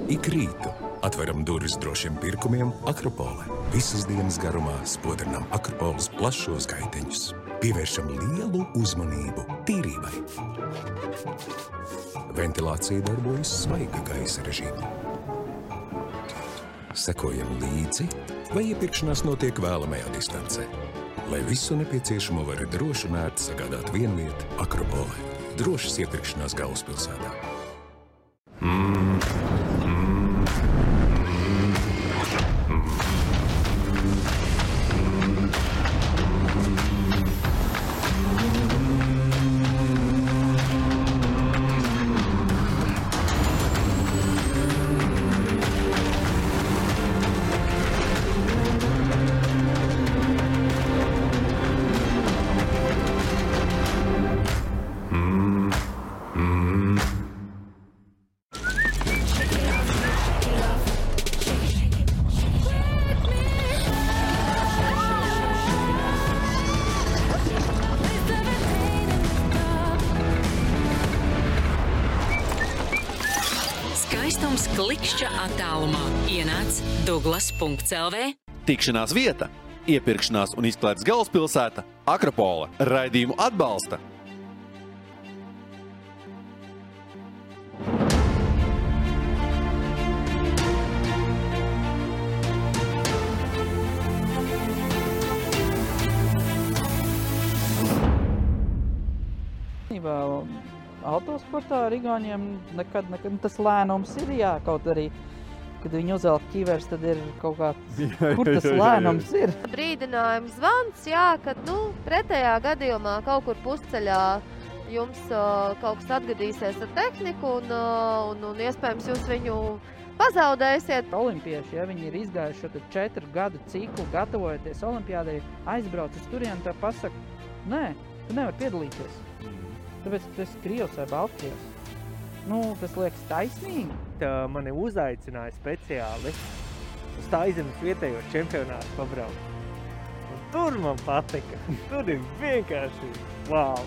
Ik rītu atveram durvis drošiem pirkumiem Akropole. Visas dienas garumā spodrinām Akropoles plašos gaiteņus. Pievēršam lielu uzmanību tīrībai. Ventilācija darbojas svaiga gaisa režīmā. Sekojam līdzi, vai iepirkšanās notiek vēlamajā distancē. Lai visu nepieciešamo var droši un ērti sagādāt vienvieta Akropolē. Drošas iepirkšanās galvaspilsētā. Klikšķa attālumā ienāc Douglas.lv. Tikšanās vieta, iepirkšanās un izklaides galvaspilsēta Akropole. Raidījumu atbalsta Autosportā ar Igauņiem nekad tas lēnums ir, jā, kaut arī, kad viņi uzvelk ķivers, tad ir kaut kā, kur tas lēnums ir. Brīdinājums zvans, jā, kad, pretējā gadījumā kaut kur pusceļā jums kaut kas atgadīsies ar tehniku un iespējams jūs viņu pazaudēsiet. Olimpieši, ja viņi ir izgājuši šo 4 gadu ciklu, gatavojoties olimpiādai, aizbrauc uz turieni, tā pasaka, nē, tu nevari piedalīties. Tāpēc, ka tu esi Krievs vai Baltkrievs. Tas liekas taisnīgi. Mani uzaicināja speciāli uz Taizemes vietējos čempionātus pabraukt. Un tur man patika. Tur ir vienkārši wow.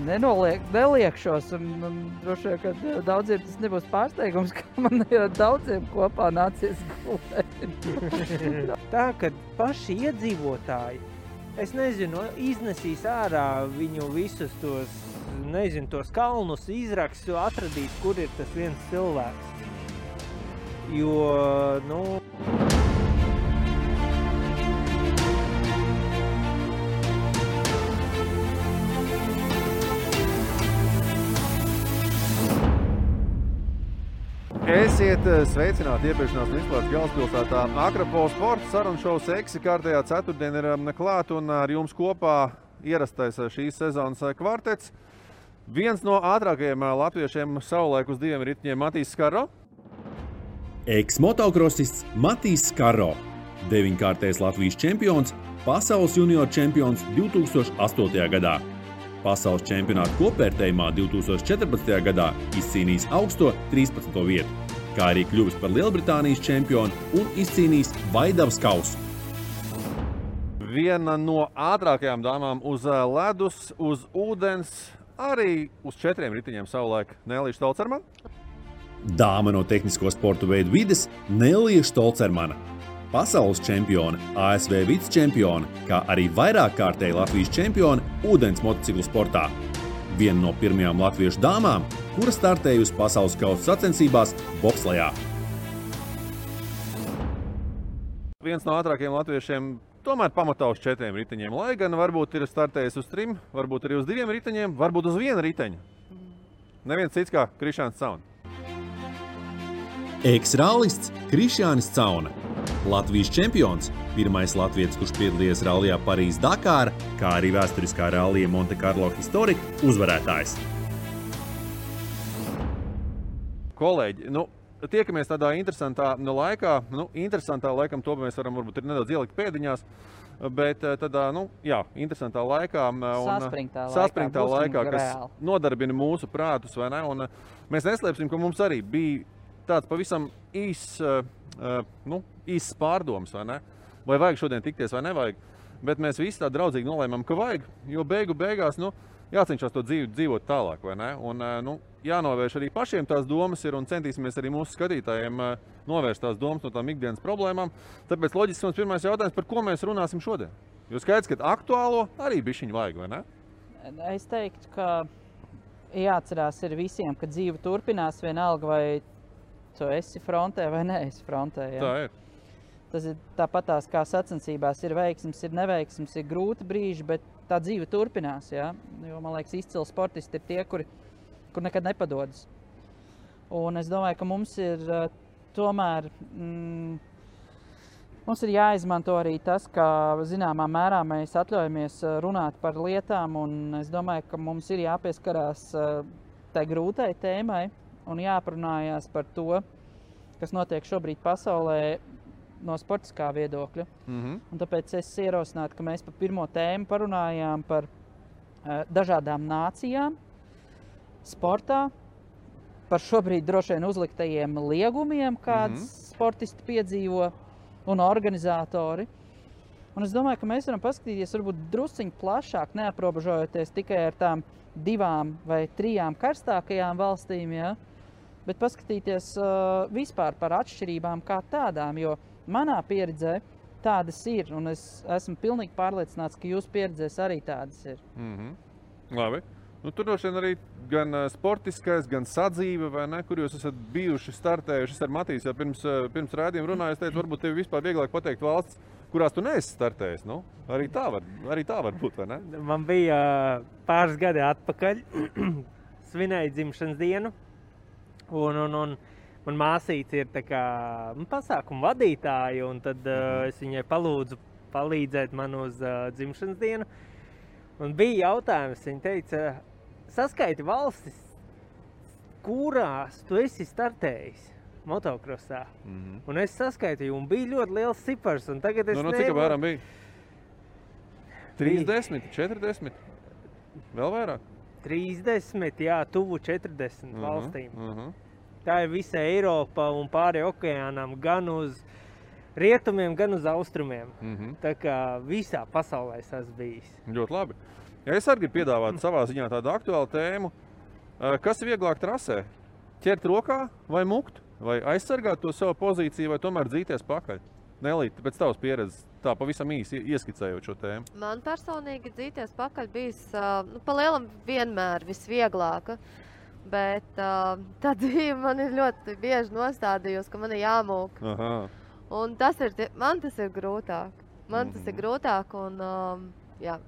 Neliekšos un droši vien, ka daudziem tas nebūs pārsteigums, ka man ir daudziem kopā nācies gulēt. Tā, kad paši iedzīvotāji, es nezinu, iznesīs ārā viņu visus tos kalnus, izraks, atradīs, kur ir tas viens cilvēks. Jo, Esiet sveicināti iepirkšanās un izklaides galvaspilsētā Akropole sporta sarunu šovs Eksi kārtējā ceturtdien ir klāt un ar jums kopā ierastais šīs sezonas kvartets. Viens no ātrākajiem latviešiem savulaik uz 2 riteņiem Matīs Skarro. Eks-motokrasists Matīs Skarro, 9-kārtais Latvijas čempions, pasaules junior čempions 2008. gadā. Pasaules čempionāta kopvērtējumā 2014. gadā izcīnījis augsto 13. vietu, kā arī kļuvis par Lielbritānijas čempionu un izcīnījis Vaidavas kausu. Viena no ātrākajām dāmām uz ledus, uz ūdens, arī uz 4 riteņiem savulaik Nelija Štolcermana. Dāma no tehnisko sportu veidu vides Nelija Štolcermana. Pasaules čempione, ASV vicečempione, kā arī vairākkārtēji Latvijas čempione ūdens motociklu sportā. Viena no pirmajām latviešu dāmām, kura startējusi pasaules kausa sacensībās bobslejā. Viens no ātrākajiem latviešiem tomēr pamatā uz 4 riteņiem, lai gan varbūt ir startējis uz 3, varbūt arī uz 2 riteņiem, varbūt uz 1 riteņu. Neviens cits kā Krišjānis Cauna. Eks-rallists Krišjānis Cauna. Latvijas čempions, pirmais latvietis, kurš piedalījies rallijā Parīze-Dakāra, kā arī vēsturiskā rallija Monte Carlo Historic uzvarētājs. Kolēģi, tiekamies tādā interesantā laikā. Interesantā laikam to mēs varam varbūt ir nedaudz ielikt pēdiņās, bet tādā, interesantā laikā un saspringtā laikā, kas nodarbina mūsu prātus, vai ne? Un mēs neslēpsim, ka mums arī bija tāds pavisam īss pārdoms, vai ne? Vai vajag šodien tikties vai nevajag, bet mēs visi tā draudzīgi nolēmām, ka vajag, jo beigās, jācenšas to dzīvot tālāk, vai ne? Un, jānovērš arī pašiem tās domas ir un centīsimies arī mūsu skatītājiem novērst tās domas no tām ikdienas problēmām. Tāpēc loģiski mums pirmais jautājums, par ko mēs runāsim šodien? Jo skaidrs, ka aktuālo arī bišķiņu vajag, vai ne? Es teiktu, ka jāatcerās ir visiem, ka dzīve turpinās vienalga, vai tu esi frontē vai neesi frontē. Ja? Tā ir. Tas ir tāpatās kā sacensībās ir veiksmes, ir neveiksmes, ir grūti brīži, bet tā dzīve turpinās. Ja? Jo, man liekas, izcili sportisti ir tie, kur nekad nepadodas. Un es domāju, ka mums ir tomēr mums ir jāizmanto arī tas, ka zināmā mērā mēs atļaujamies runāt par lietām, un es domāju, ka mums ir jāpieskarās tai grūtai tēmai un jāparunājās par to, kas notiek šobrīd pasaulē no sportiskā viedokļa. Un tāpēc es ierosinātu, ka mēs par pirmo tēmu parunājām par dažādām nācijām sportā, par šobrīd droši vien uzliktajiem liegumiem, kādas sportisti piedzīvo un organizatori. Un es domāju, ka mēs varam paskatīties varbūt drusciņi plašāk, neaprobežojoties tikai ar tām 2 vai 3 karstākajām valstīm, ja? Bet paskatīties vispār par atšķirībām kā tādām, jo manā pieredzē tādas ir, un es esmu pilnīgi pārliecināts, ka jūsu pieredzēs arī tādas ir. Labi. Tur droši vien arī gan sportiskais, gan sadzīve, vai ne, kur jūs esat bijuši startējuši ar Matīs, jau pirms rādījuma runāju, es teicu, varbūt tev vispār vieglāk pateikt valsts, kurās tu neesi startējis. Arī tā var būt, vai ne? Man bija pāris gadi atpakaļ, svinēju dzimšanas dienu, un man māsīca ir tā kā pasākuma vadītāja, un tad es viņai palūdzu palīdzēt man uz dzimšanas dienu. Un bija jautājums, viņa teica, saskaiti valstis, kurās tu esi startējis motokrosā. Un es saskaitīju, un bija ļoti liels cipars, un tagad es cik apmēram bija? 30, 40? Vēl vairāk? 30, jā, tuvu 40 valstīm. Tā ir visa Eiropa un pāri okeānam, gan uz rietumiem, gan uz austrumiem. Tā kā visā pasaulē es esmu bijis. Ļoti labi. Ja es arī gribu piedāvāt savā ziņā tādu aktuālu tēmu, kas ir vieglāk trasē? Ķert rokā vai mukt? Vai aizsargāt to savu pozīciju, vai tomēr dzīties pakaļ? Nelīt, pēc tavas pieredzes, tā pavisam īsi ieskicējot šo tēmu. Man personīgi dzīties pakaļ bijis pa lielam vienmēr visvieglāka. Bet tā dzīve man ir ļoti bieži nostādījusi, ka man ir jāmūk. Un man tas ir grūtāk. Tas ir grūtāk un jā.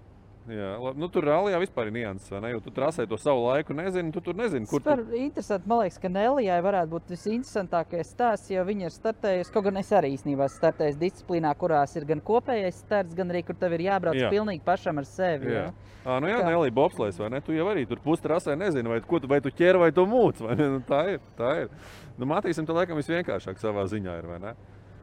Jā, tur rallijā vispār ir nianses, vai ne? Jo tu trasē to savu laiku nezini, tu tur nezini, kur tu... Interesanti, man liekas, ka Nelijai varētu būt visinteresantākais stāsts, jo viņa ir startējusi, kaut gan es arī īstenībā startējusi disciplīnā, kurās ir gan kopējais starts, gan arī, kur tev ir jābrauc pilnīgi pašam ar sevi. Jā. Nelija, bobslēs, vai ne? Tu jau arī tur pustrasē nezini, vai tu ķer vai tu mūc, vai ne? Tā ir. Matīsim, tā laikam visvienkāršāk savā ziņā ir, vai ne?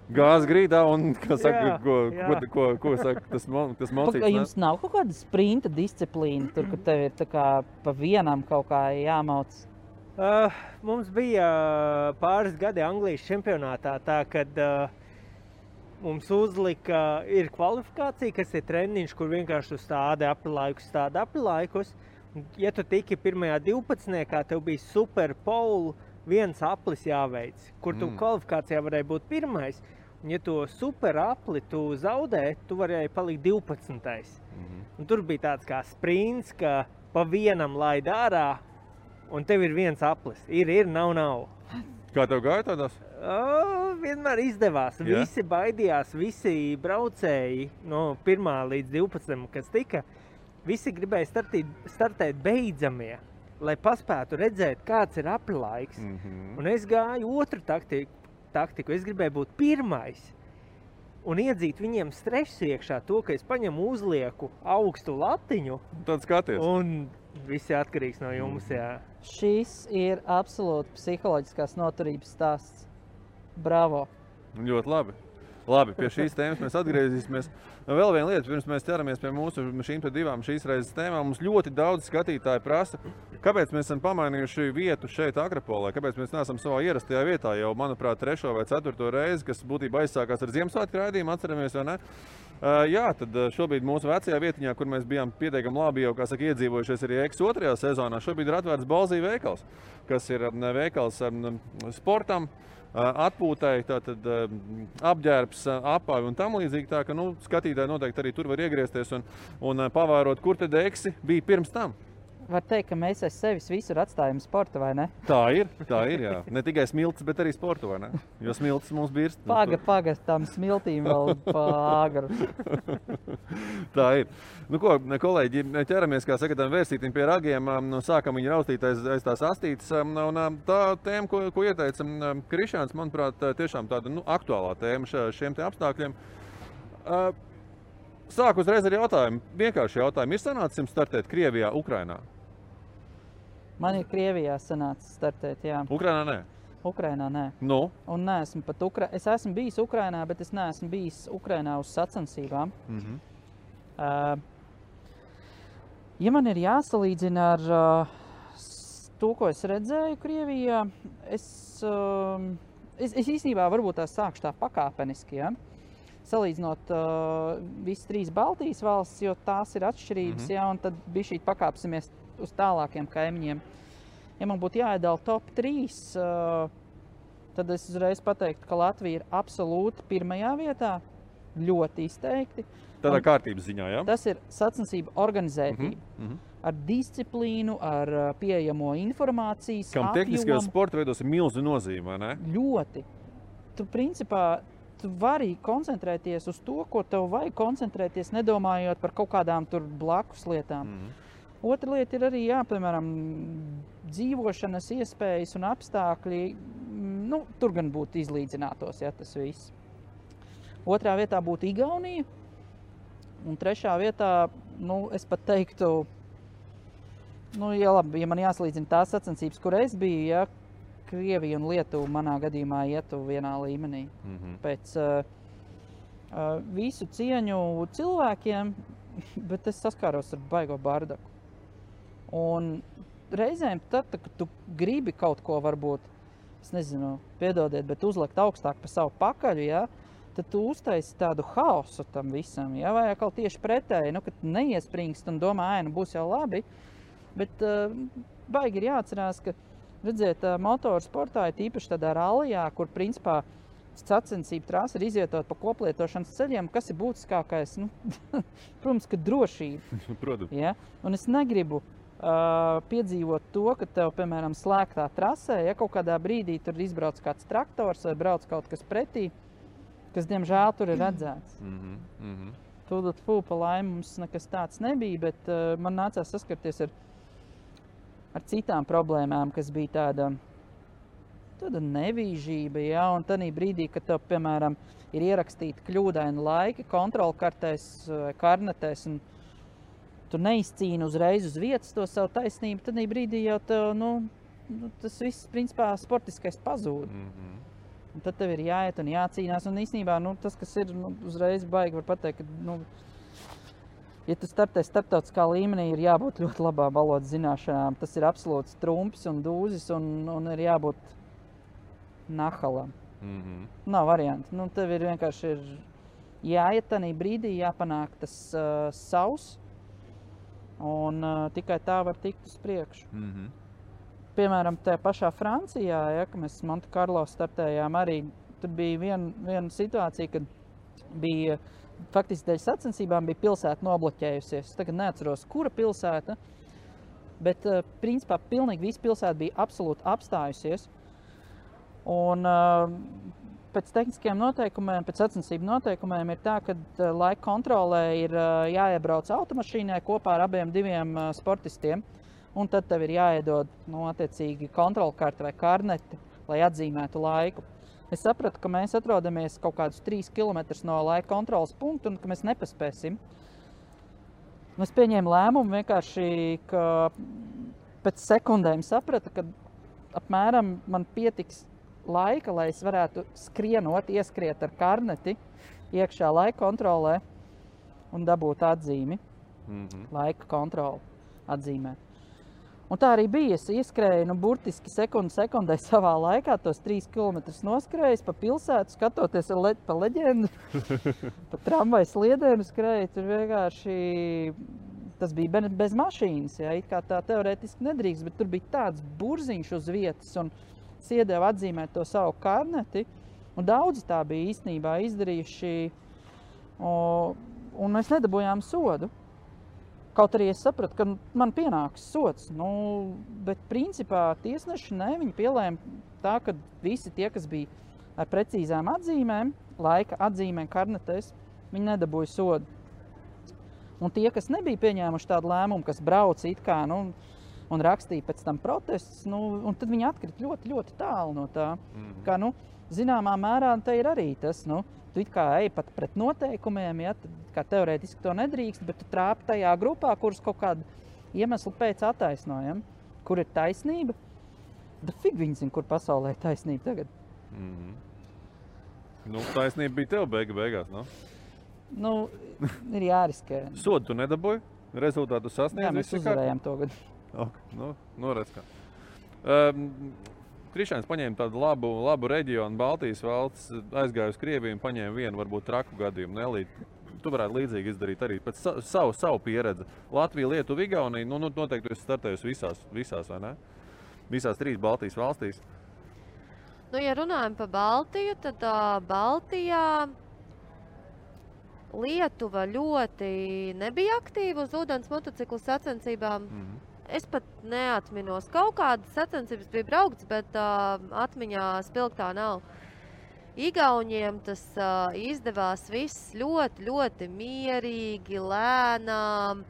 Gāz grīdā un, ko saka, tas mocīts. Jums nav kaut kāda sprinta disciplīna, tur, kur tev ir tā kā pa vienam kaut kā jāmauc? Mums bija pāris gadi Anglijas čempionātā, tā, kad mums uzlika, ir kvalifikācija, kas ir treniņš, kur vienkārši tu stādi aprilaikus. Ja tu tiki pirmajā 12, tev bija super pole, viens aplis jāveic, kur tu kvalifikācijā varēja būt pirmais. Un ja to super apli tu zaudē, tu varēji palikt 12. Un tur bija tāds kā sprints, ka pa vienam laid ārā, un tev ir viens aplis. Ir, nav. Kā tev gāja tādās? Vienmēr izdevās. Yeah. Visi baidījās, visi braucēji no 1. līdz 12, kas tika. Visi gribēja startēt beidzamie, lai paspētu redzēt, kāds ir aprilaiks. Un es gāju otru taktiku. Es gribēju būt pirmais un iedzīt viņiem stresu iekšā to, ka es paņemu uzlieku augstu latiņu. Tad skaties. Un visi atkarīgs no jums, jā. Šis ir absolūti psiholoģiskās noturības stāsts. Bravo! Ļoti labi. Labi, pie šīs tēmas mēs atgriezīsimies. Vēl viena lieta, pirms mēs ķeramies pie mūsu šīm 2 šīs reizes tēmām. Mums ļoti daudz skatītāji prasa, Kāpēc mēs esam pamainījuši vietu šeit Akropolē? Kāpēc mēs neesam savā ierastajā vietā jau, manuprāt, 3. vai 4. reizi, kas būtībā aizsākās ar Ziemassvētku raidījumu, atceramies, vai ne? Jā, tad šobrīd mūsu vecajā vietiņā, kur mēs bijām pietiekami labi jau, kā saka, iedzīvojušies arī X 2. sezonā, šobrīd ir atvērts Balzī veikals, kas ir veikals sportam, atpūtai, tātad apģērbs, apāvi un tam līdzīgi. Tā, ka skatītāji noteikti arī tur var iegriezties un pavērot, kur tad Eksi bija pirms tam. Var teikt, ka mēs aiz sevis visur atstājam sportu, vai ne? Tā ir, jā. Ne tikai smiltis, bet arī sportu, vai ne? Jo smiltis mums birst. Paga, tam smiltīm vēl pāgaru. Tā ir. Nu ko, kolēģi, ķeramies, kā saka, tam vērstītim pie ragiem, sākam viņu raustīt aiz tās astītes. Un tā tēma, ko ieteica Krišāns, manuprāt, tiešām tāda aktuālā tēma šiem te apstākļiem. Sāku uzreiz ar jautājumu. Vienkārši jautājumu. Ir sanācis jums startēt Krievijā, Ukrainā? Man ir Krievijā sanācis startēt, jā. Ukrainā nē? Ukrainā nē. Nu? Un neesmu pat Es esmu bijis Ukrainā, bet es neesmu bijis Ukrainā uz sacensībām. Ja man ir jāsalīdzina ar to, ko es redzēju Krievijā, es īstenībā varbūt tās sākšu tā pakāpeniski, ja? Salīdzinot visas 3 Baltijas valstis, jo tās ir atšķirības, ja, un tad bišķīt pakāpsimies uz tālākiem kaimiņiem. Ja man būtu jāiedala top 3, tad es uzreiz pateiktu, ka Latvija ir absolūti pirmajā vietā, ļoti izteikti. Tādā kārtības ziņā, jā? Tas ir sacensību organizētība. Ar disciplīnu, ar pieejamo informācijas apjomu. Kam tehniskajos sporta veidos ir milzu nozīme, vai ne? Ļoti. Tu principā tu vari koncentrēties uz to, ko tev vajag koncentrēties, nedomājot par kaut kādām tur blakus lietām. Otra lieta ir arī, jā, piemēram, dzīvošanas iespējas un apstākļi, tur gan būtu izlīdzinātos, ja tas viss. Otrā vietā būtu Igaunija, un trešā vietā, es pat teiktu, ja man jāsalīdzina tās sacensības, kur es biju, ja, Krievija un Lietuva manā gadījumā ietu vienā līmenī. Pēc visu cieņu cilvēkiem, bet es saskāros ar baigo bardaku. Un reizēm tad, kad tu gribi kaut ko varbūt, es nezinu, piedodiet, bet uzlikt augstāk pa savu pakaļu, ja, tad tu uztaisi tādu haosu tam visam, ja, vai atkal tieši pretēji, kad neiespringst un domā, būs jau labi, bet baigi ir jāatcerās, ka redziet, motorsportā ir tīpaši tādā rallijā, kur principā sacensību trasa ir izvietot pa koplietošanas ceļiem, kas ir būtiskākais, protams, ka drošība. Protams. Ja? Un es negribu piedzīvot to, ka tev, piemēram, slēgtā trasē, ja kaut kādā brīdī tur izbrauc kāds traktors vai brauc kaut kas pretī, kas, diemžēl, tur ir redzēts. Tūdot pa laimi mums nekas tāds nebija, bet man nācās saskarties ar citām problēmām, kas bija tāda nevīžība, ja, un tanī brīdī, kad tev, piemēram, ir ierakstīti kļūdaini laiki kontrolkartēs vai karnetēs, un tu neizcīni uzreiz uz vietas to savu taisnību, tanī brīdī jau tev, tas viss, principā, sportiskais pazūd. Un tad tev ir jāiet un jācīnās, un īstenībā, tas, kas ir, uzreiz baigi var pateikt, ka, ja tu startē starptautiskā līmenī, ir jābūt ļoti labām valodas zināšanām. Tas ir absolūts trumps un dūzis un ir jābūt nahalam. Nav varianti. Tev ir vienkārši jāiet tanī brīdī, jāpanāk tas savs, un tikai tā var tikt uz priekšu. Piemēram, tajā pašā Francijā, ja, ka mēs Monte Carlo startējām, arī tur bija viena situācija, kad bija faktiski dēļ sacensībām bija pilsēta nobloķējusies. Es tagad neatceros, kura pilsēta, bet principā pilnīgi visa pilsēta bija absolūti apstājusies. Un pēc tehniskiem noteikumiem, pēc sacensību noteikumiem ir tā, ka laika kontrolē ir jāiebrauc automašīnai kopā ar abiem sportistiem, un tad tev ir jāiedod attiecīgi kontrolkarte vai karneti, lai atzīmētu laiku. Es sapratu, ka mēs atrodamies kaut kādus 3 kilometrus no laika kontrolas punktu un ka mēs nepaspēsim. Es pieņēmu lēmumu vienkārši, ka pēc sekundēm sapratu, ka apmēram man pietiks laika, lai es varētu skrienot, ieskriet ar karneti iekšā laika kontrolē un dabūt atzīmi, laika kontroli atzīmēt. Un tā arī bija. Es ieskrēju, burtiski sekundē savā laikā, tos 3 kilometrus noskrējis pa pilsētu, skatoties pa leģendu, pa tramvaju sliedēm skrēju. Tur vienkārši tas bija bez mašīnas, ja, it kā tā teorētiski nedrīkst, bet tur bija tāds burziņš uz vietas, un es iedevu atzīmēt to savu karneti, un daudzi tā bija īstenībā izdarījuši, un mēs nedabūjām sodu. Kaut arī es sapratu, ka man pienāks sods, bet principā tiesneši viņi pielēma tā, ka visi tie, kas bija ar precīzām atzīmēm, laika atzīmēm karnetēs, viņi nedabūja sodu. Un tie, kas nebija pieņēmuši tādu lēmumu, kas brauca it kā, un rakstīja pēc tam protestus, un tad viņi atkrita ļoti, ļoti tālu no tā. Kā, zināmā mērā te ir arī tas, tu it kā ej pat pret noteikumiem, ja, kā teorētiski to nedrīkst, bet tu trāpi tajā grupā, kuras kaut kādu iemeslu pēc attaisnojam, kur ir taisnība. Bet fig viņi zina, kur pasaulē ir taisnība tagad. Taisnība bija tev beigās, ir jāriskē. Sodu tu nedabūji? Rezultātu sasniedz? Jā, mēs uzvarējām to gadu. Redz kā. Krišāns paņēma tādu labu reģionu, Baltijas valsts, aizgāja uz Krieviju un paņēma vienu, varbūt traku gadījumu. Nelīt, tu varētu līdzīgi izdarīt arī pēc savu pieredzi. Latvija, Lietuva, Igaunija, noteikti tu esi startējusi visās, vai ne? Visās 3 Baltijas valstīs. Ja runājam par Baltiju, tad Baltijā Lietuva ļoti nebija aktīva uz ūdens motociklu sacensībām. Es pat neatminos. Kaut kādas sacensības bija braukts, bet atmiņā spilgtā nav. Igauņiem tas izdevās viss ļoti, ļoti mierīgi, lēnām,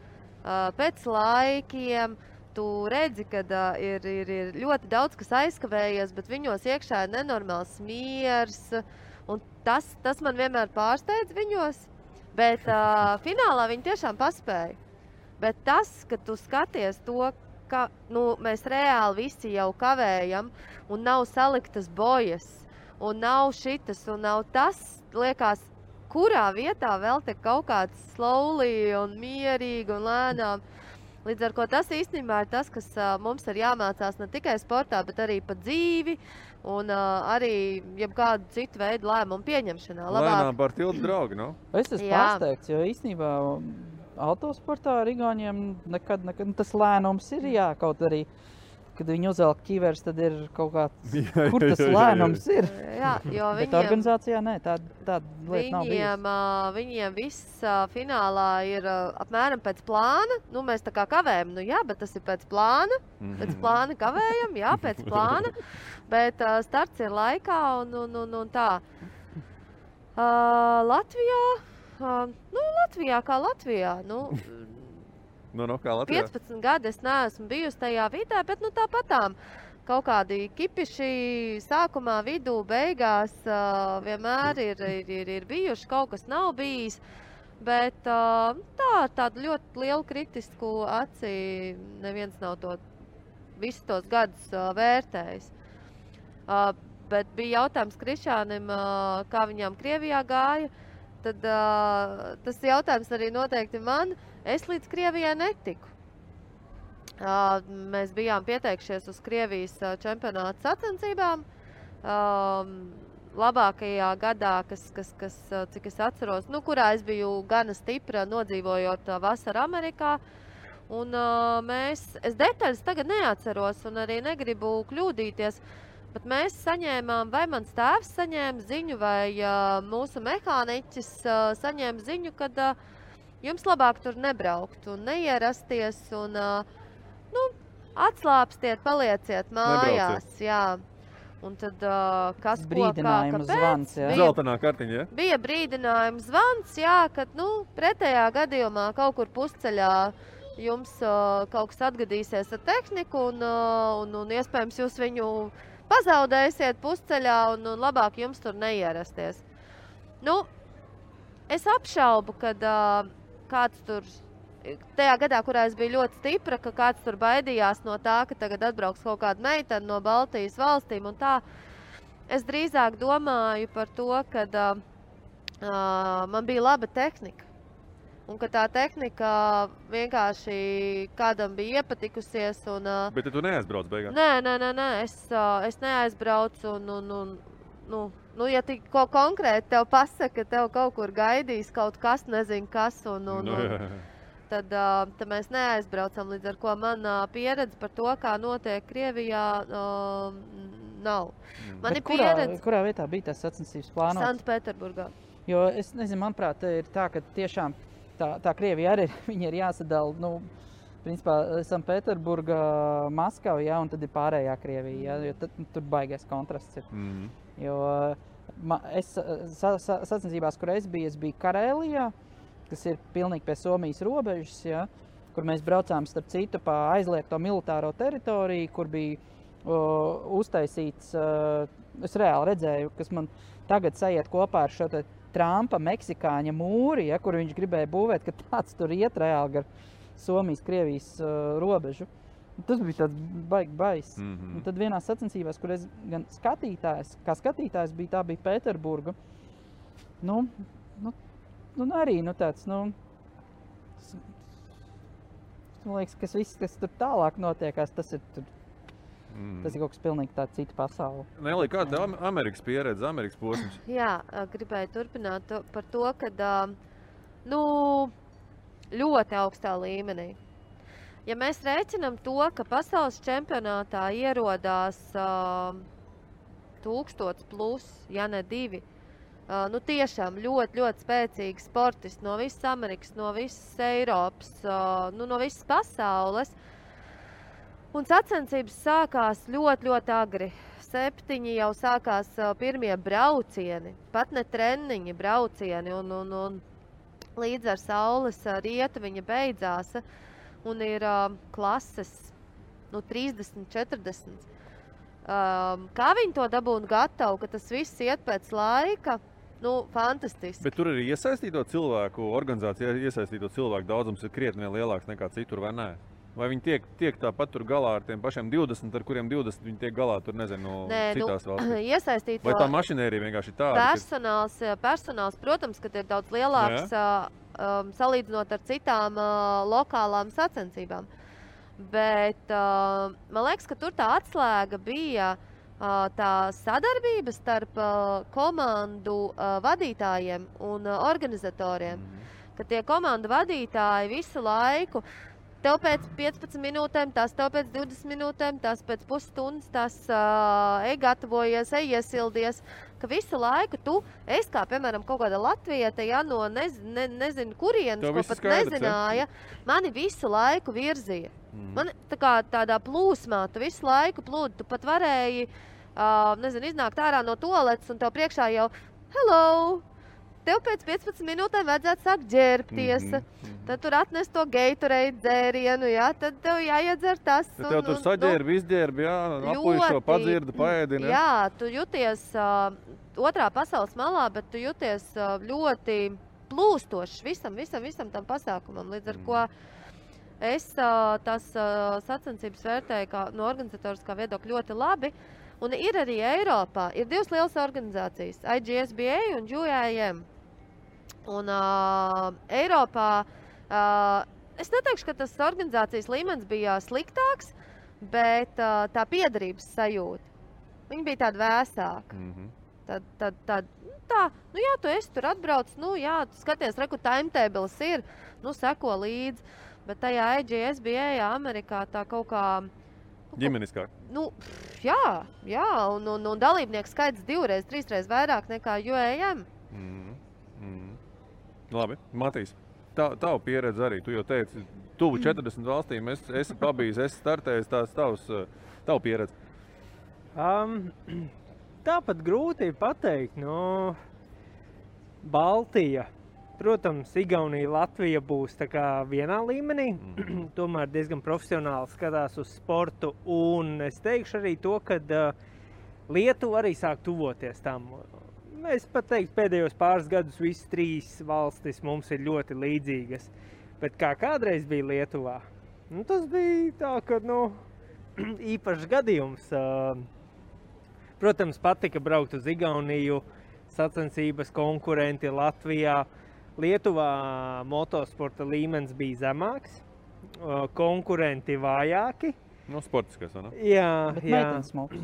pēc laikiem. Tu redzi, ka ir ļoti daudz, kas aizkavējies, bet viņos iekšā ir nenormāls miers. Un tas man vienmēr pārsteidz viņos, bet finālā viņi tiešām paspēja. Bet tas, ka tu skaties to, ka mēs reāli visi jau kavējam un nav saliktas bojas, un nav šitas, un nav tas, liekas, kurā vietā vēl te kaut kāds slowly un mierīgi un lēnām. Līdz ar ko tas īstenībā ir tas, kas mums ir jāmācās ne tikai sportā, bet arī pa dzīvi un arī jebkādu citu veidu lēmumu pieņemšanā. Lēnām par tiltu draugi, Es esmu pārsteigts, jo īstenībā autosportā ar Igauniem nekad tas lēnums ir, kaut arī, kad viņi uzvelk ķivers, tad ir kaut kāds, kur tas lēnums ir. Jā, jo bet organizācijā tāda lieta nav bijusi. Viņiem viss finālā ir apmēram pēc plāna. Mēs tā kā kavējam, bet tas ir pēc plāna. Pēc plāna kavējam, pēc plāna. Bet starts ir laikā un tā. Latvijā kā Latvijā. Kā Latvijā. 15 gadi es neesmu bijusi tajā vidē, bet tāpatām kaut kādi kipiši sākumā, vidū, beigās vienmēr ir bijuši, kaut kas nav bijis. Bet tādu ļoti lielu kritisku aci neviens nav visus tos gadus vērtējis. Bet bija jautājums Krišānim, kā viņām Krievijā gāja. Tad tas jautājums arī noteikti man. Es līdz Krievijai netiku. Mēs bijām pieteikšies uz Krievijas čempionāta sacensībām. Labākajā gadā, cik es atceros, kurā es biju gana stipra, nodzīvojot vasaru Amerikā. Un es detaļas tagad neatceros un arī negribu kļūdīties. Bet mēs saņēmām, vai mans tēvs saņēma ziņu, vai mūsu mehāniķis saņēma ziņu, kad jums labāk tur nebraukt un neierasties un atslāpstiet, palieciet mājās. Jā. Un tad kas brīdinājums zvans, jā? Zeltainā kartiņa, jā? Bija brīdinājums zvans, jā, kad pretējā gadījumā kaut kur pusceļā jums kaut kas atgadīsies ar tehniku un iespējams jūs viņu pazaudēsiet pusceļā un labāk jums tur neierasties. Es apšaubu, kad kāds tur, tajā gadā, kurā es biju ļoti stipra, ka kāds tur baidījās no tā, ka tagad atbrauks kaut kāda meitene no Baltijas valstīm un tā. Es drīzāk domāju par to, kad man bija laba tehnika. Un ka tā tehnika vienkārši kādam bija iepatikusies. Un, Bet tu neaizbrauc beigās? Nē, es neaizbraucu. Ja tik ko konkrēti tev pasaka, ka tev kaut kur gaidīs kaut kas, nezinu kas, tad mēs neaizbraucam. Līdz ar ko manā pieredze par to, kā notiek Krievijā, nav. Kurā vietā bija tas sacensības plānots? Sanktpēterburgā. Jo es nezinu, manuprāt, ir tā, ka tiešām tā Krievija arī viņa ir jāsadala, principā Sanktpēterburga, Maskava, ja, un tad ir pārējā Krievija, ja, jo tad tur baigais kontrasts ir. Jo sacensībās, kur es biju Karēlijā, kas ir pilnīgi pie Somijas robežas, ja, kur mēs braucām starp citu pa aizliegto militāro teritoriju, kur bija uztaisīts, es reāli redzēju, kas man tagad sajiet kopā ar šo te Trumpa meksikāņa mūri, ja, kur viņš gribēja būvēt, ka tāds tur iet reāli gar Somijas-Krievijas robežu. Tas bija tāds baigs. Un tad vienā sacensībās, kur es gan skatītājs bija, tā bija Pēterburga. Arī tāds, man liekas, kas tur tālāk notiekās, tas ir tur. Tas ir kaut kas pilnīgi tāds cita pasaule. Nelī, kāda Amerikas pieredze, Amerikas posms? Jā, gribēju turpināt par to, kad ļoti augstā līmenī. Ja mēs rēķinām to, ka pasaules čempionātā ierodās 1000 plus, ja ne 2, tiešām ļoti, ļoti spēcīgi sportisti no visas Amerikas, no visas Eiropas, no visas pasaules. Un sacensības sākās ļoti, ļoti agri. 7 jau sākās pirmie braucieni, pat ne treniņi, braucieni, un līdz ar saules rietu viņa beidzās, un ir klases 30, 40. Kā viņi to dabūna gatavu, ka tas viss iet pēc laika, fantastiski. Bet tur arī iesaistīto cilvēku, organizācijā iesaistīto cilvēku daudzums ir krietni lielāks nekā citur, vai nē? Vai viņi tiek tāpat tur galā ar tiem pašiem 20, ar kuriem 20 viņi tiek galā tur, nezinu, citās valstīs? Iesaistīto. Vai tā mašinērija vienkārši ir tāda? Personāls, protams, kad ir daudz lielāks salīdzinot ar citām lokālām sacensībām. Bet man liekas, ka tur tā atslēga bija tā sadarbība starp komandu vadītājiem un organizatoriem. Ka tie komandu vadītāji visu laiku tev pēc 15 minūtēm, tas tev pēc 20 minūtēm, tas pēc pusstundas, tas gatavojies, iesildies, ka visu laiku es kā, piemēram, kaut kāda latvieta, ja, no nezinu kurienes, ko pat nezināja, mani visu laiku virzīja. Man tādā plūsmā, tu visu laiku plūdi, tu pat varēji, iznākt ārā no toaletes un tev priekšā jau, hello! Tev pēc 15 minūtēm vajadzētu sākt ģērbties, tad tur atnest to Gatorade dzērienu, ja, tad tev jāiedzer tas. Tad tev tur saģērbi, izģērbi, jā, apuišo, padzirdi, paēdini. Jā, tu jūties otrā pasaules malā, bet tu jūties ļoti plūstošs visam tam pasākumam. Līdz ar ko es tās sacensības vērtēju no organizatoriskā viedokļa ļoti labi. Un ir arī Eiropā, ir 2 lielas organizācijas, IGSBA un UAM. Un Eiropā, es neteikšu, ka tas organizācijas līmenis bija sliktāks, bet tā piederības sajūta, viņa bija tāda vēsāka. Jā, tu esi tur atbrauc, jā, tu skaties, reku timetables ir, seko līdzi, bet tajā IGSBA Amerikā tā kaut kā ģimeniskāk. Jā, un dalībnieku skaits 2, 3 vairāk nekā UAM. Labi, Matīs, tavu pieredze arī, tu jau teici, tuvu 40 valstīm, esi pabijis, esi startējis, tavu pieredze. Tāpat grūti pateikt, Baltija. Protams, Igaunija, Latvija būs tā kā vienā līmenī, tomēr diezgan profesionāli skatās uz sportu, un es teikšu arī to, ka Lietuva arī sāk tuvoties tam. Es pat teiktu, pēdējos pāris gadus visas 3 valstis mums ir ļoti līdzīgas, bet kā kādreiz bija Lietuvā, tas bija tā, ka, īpašs gadījums. Protams, patika braukt uz Igauniju, sacensības konkurenti Latvijā, Lietuvā motosporta līmenis bija zemāks, konkurenti vājāki. Nu, sportiskais, vai ne? Jā, Bet jā. meitenes smuks.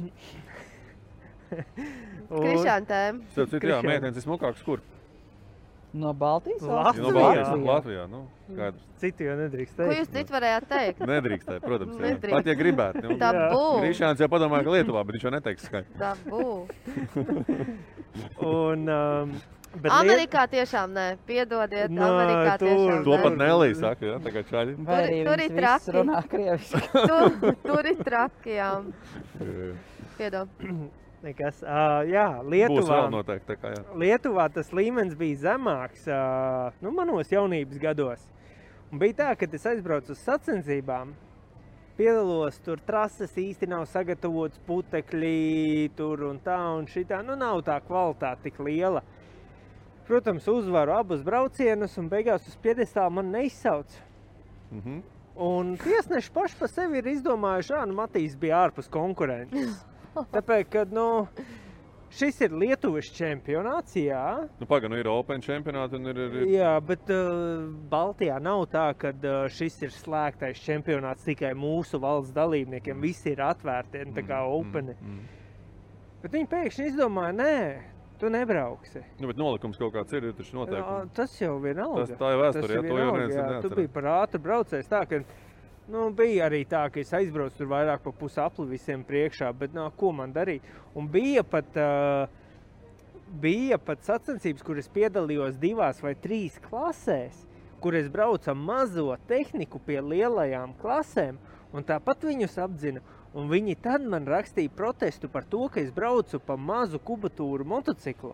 Krišāna tēma. Starp citu, jā, meitenes ir smukāks, kur? No Baltijas Latvijā. No Baltijas, Latvijā, nu, skaidrs. Citu jau nedrīkst Ko teikt. jūs citu varējāt teikt? Nedrīkstēja, protams, jā. Nedrīkst. Pat, ja gribētu. Nu, Tabū. Krišāns jau padomāja, ka Lietuvā, bet viņš jau neteiks skaidrs. Tabū. Un, bet Amerikā tiešām nē. Piedodiet, Nē, Amerikā tiešām To nē. pat Nelī saka, jā, tā kā čaļi. Vai arī Tur ir viņas viss traki. runā krieviski. Tur ir traki, jā. Piedod. nekas. Jā, Būs Lietuvā. vēl noteikti, tā kā jā. Lietuvā tas līmenis bija zemāks, nu, manos jaunības gados. Un bija tā, kad es aizbraucu uz sacensībām, piedalos, tur trases īsti nav sagatavotas, putekļi tur un tā un šitā. Nu, nav tā kvalitāte tik liela. Protams, uzvaru abus braucienus un beigās uz piedestālu man neizsauc. Mhm. Un tiesneši paši pa sevi ir izdomājuši, nu, Matīs bija ārpus konkurences. Tāpēc, kad, nu, šis ir Lietuvas čempionāts, jā. Nu, paga, nu ir Open čempionāti un ir... Jā, bet Baltijā nav tā, ka šis ir slēgtais čempionāts tikai mūsu valsts dalībniekiem. Visi ir atvērti, tā kā openi. Bet viņi pēkšņi izdomāja, nē, tu nebrauksi. Nu, bet nolikums kaut kāds ir taču noteikumi. Tas jau vienalga. Tā ir vēsture, jā, to jau neviens Tu neatcerās. biji par ātru braucējs tā, ka nu, bija arī tā, ka es aizbraucu tur vairāk pa pusapli visiem priekšā, bet ko man darīt? Un bija pat sacensības, kur es piedalījos 2 vai 3 klasēs, kur es braucu mazo tehniku pie lielajām klasēm, un tāpat viņus apdzina. Un viņi tad man rakstīja protestu par to, ka es braucu pa mazu kubatūru motociklu.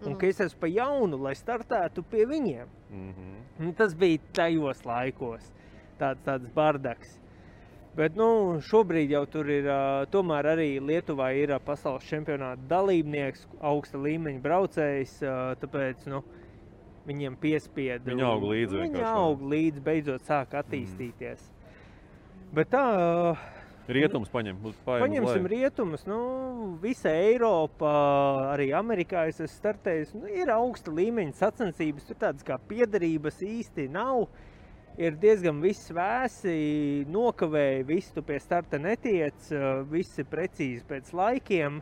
Un ka es esmu pa jaunu, lai startētu pie viņiem. Un tas bija tajos laikos. Tāds bardaks. Bet nu, šobrīd jau tur ir, tomēr arī Lietuvā ir pasaules čempionāta dalībnieks, augsta līmeņa braucējs, tāpēc nu, viņiem piespieda. Viņi aug līdzi Viņi vienkārši. aug līdzi, beidzot sāk attīstīties. Bet tā... Rietums paņem. Paņemsim rietumus, nu, visa Eiropa, arī Amerikā es esmu startējis, nu, ir augsta līmeņa sacensības, tur tādas kā piederības īsti nav. Ir diezgan viss vēsi, nokavēja, viss tu pie starta netiec, viss ir precīzi pēc laikiem.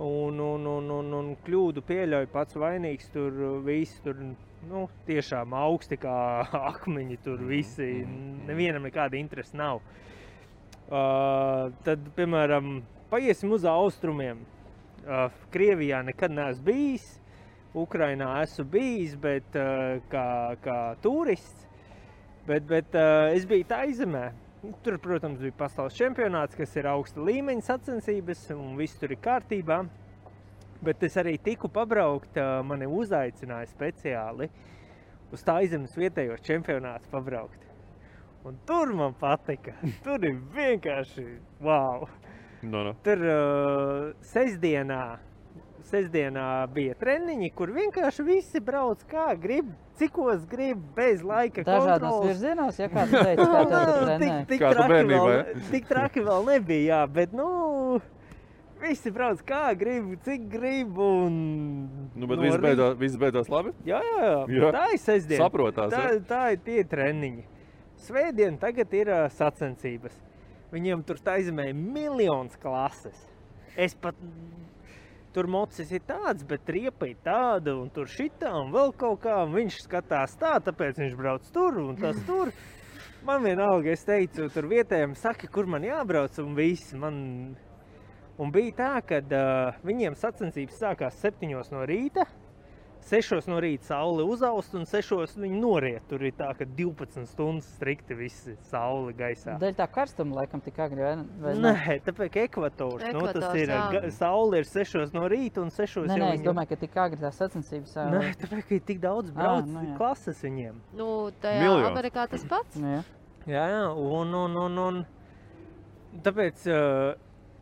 Un kļūdu pieļauj pats vainīgs, tur viss tur, nu, tiešām augsti kā akmeņi, tur visi, nevienam nekāda interesa nav. Tad, piemēram, paiesim uz austrumiem. Krievijā nekad neesmu bijis, Ukrainā esmu bijis, bet kā turists. Bet es biju Taizemē. Tur, protams, bija pasaules čempionāts, kas ir augsta līmeņa sacensības, un viss tur ir kārtībā. Bet es arī tiku pabraukt, mani uzaicināja speciāli uz Taizemes vietējos čempionātus pabraukt. Un tur man patika. Tur ir vienkārši wow. No. Tur sestdienā bija treniņi, kur vienkārši visi brauc kā grib, cikos grib, bez laika Dažādos kontroles. virzienos, ja kāds teica, kā tev tur trenē. Kā tu bērnībā, Tik traki vēl nebija, jā, bet nu, visi brauc kā grib, cik grib un... Nu, bet no viss beidzās labi? Jā, Jā. tā ir sestdiena. Saprotās, Tā ir tie treniņi. Svētdien tagad ir sacensības. Viņiem tur Taizemē ir miljons klases. Es pat... Tur mocis ir tāds, bet riepa ir tāda, un tur šitā, un vēl kaut kā, un viņš skatās tā, tāpēc viņš brauc tur, un tas tur. Man vienalga, es teicu, tur vietējiem saka, kur man jābrauc, un viss man... Un bija tā, kad viņiem sacensības sākās 7 no rīta, 6 no rīta saule uzaust, un 6 viņi noriet. Tur ir tā, ka 12 stundas strikti visi saule gaisā. Dēļ tā karstuma laikam tik agri, vai Nē, tāpēc ka ekvators, nu, tas Ekvators, ir, jā. saule ir 6 no rīta, un 6 Nē, jau es domāju, ka tik agri tās sacensības. Nē, tāpēc, ka ir tik daudz brauc nu jā. klases viņiem. Nu, tajā Miljons. Amerikā tas pats. Jā. Jā, un tāpēc,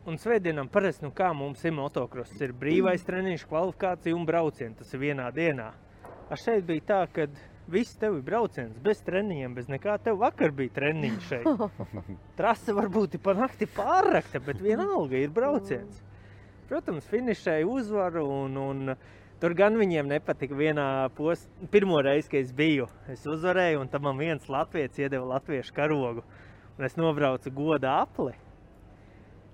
un svētdienām parasti, nu kā mums ir motokross, ir brīvais treniņš, kvalifikācija un braucieni, tas ir vienā dienā. A šeit bija tā, kad viss tev ir brauciens, bez treniņiem, bez nekā, tev vakar bija treniņš šeit. Trase varbūt ir pa nakti pārrakta, bet vienalga ir brauciens. Protams, finišēja uzvaru un Tur gan viņiem nepatika vienā pirmo reizi, kad es biju. Es uzvarēju, un tam man viens latvietis iedeva latviešu karogu. Un es nobraucu goda apli.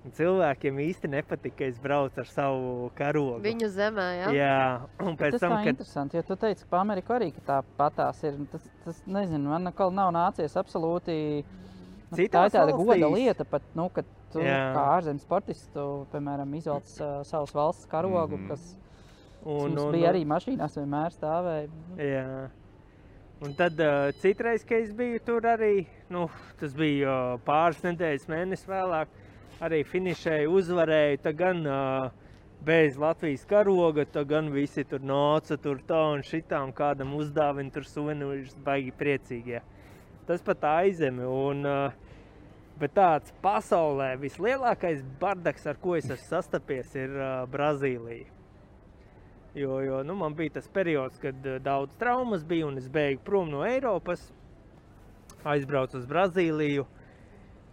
Un cilvēkiem īsti nepatika, ka es braucu ar savu karogu. Viņu zemē, jā? Jā. Un pēc Tas tam, tā interesanti, jo tu teici, ka pa Ameriku arī ka tā patās ir. Tas nezinu, man nekal nav nācies absolūti... Tā ir tāda goda lieta pat, kad tu kā ārzemju sportists, tu, piemēram, izvelc savas valsts karogu, kas mums bija arī mašīnās vienmēr stāvēja. Jā. Un tad citreiz, kad es biju tur arī, tas bija pāris nedēļas mēnesis vēlāk, arī finišēju, uzvarēju, tā gan bez Latvijas karoga, tā gan visi tur nāca tur tā un šitām, kādam uzdāvina tur suvenīrus, baigi priecīgi. Tas pat aizemi, bet tāds pasaulē vislielākais bardaks, ar ko es esmu sastapies, ir Brazīlija. Jo man bija tas periods, kad daudz traumas bija un es beigu prom no Eiropas, aizbraucu uz Brazīliju.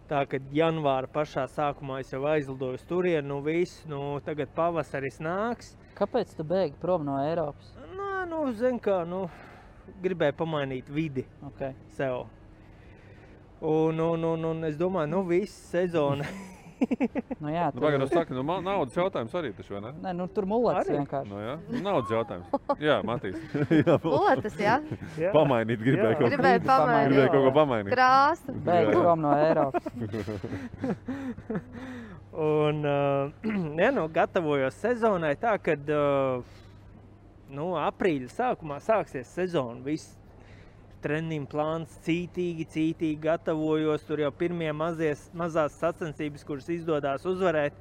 Tā, kad janvāra pašā sākumā es jau aizlidoju uz turienu, tagad pavasaris nāks. Kāpēc tu beigi prom no Eiropas? Zin kā, gribēju pamainīt vidi sev. Un es domāju, viss sezona. Jā, Pagaidām saka, naudas jautājums arī taču, vai ne? Nē, tur mulets vienkārši. Jā, naudas jautājums. Jā, Matīs. Muletas, jā? Pamainīt gribēju kaut ko pamainīt. Krāsu. Beigi prom no Eiropas. Un, gatavojos sezonai tā, kad aprīļa sākumā sāksies sezona. Viss treniņu plāns cītīgi gatavojos. Tur jau pirmie mazās sacensības, kuras izdodās uzvarēt.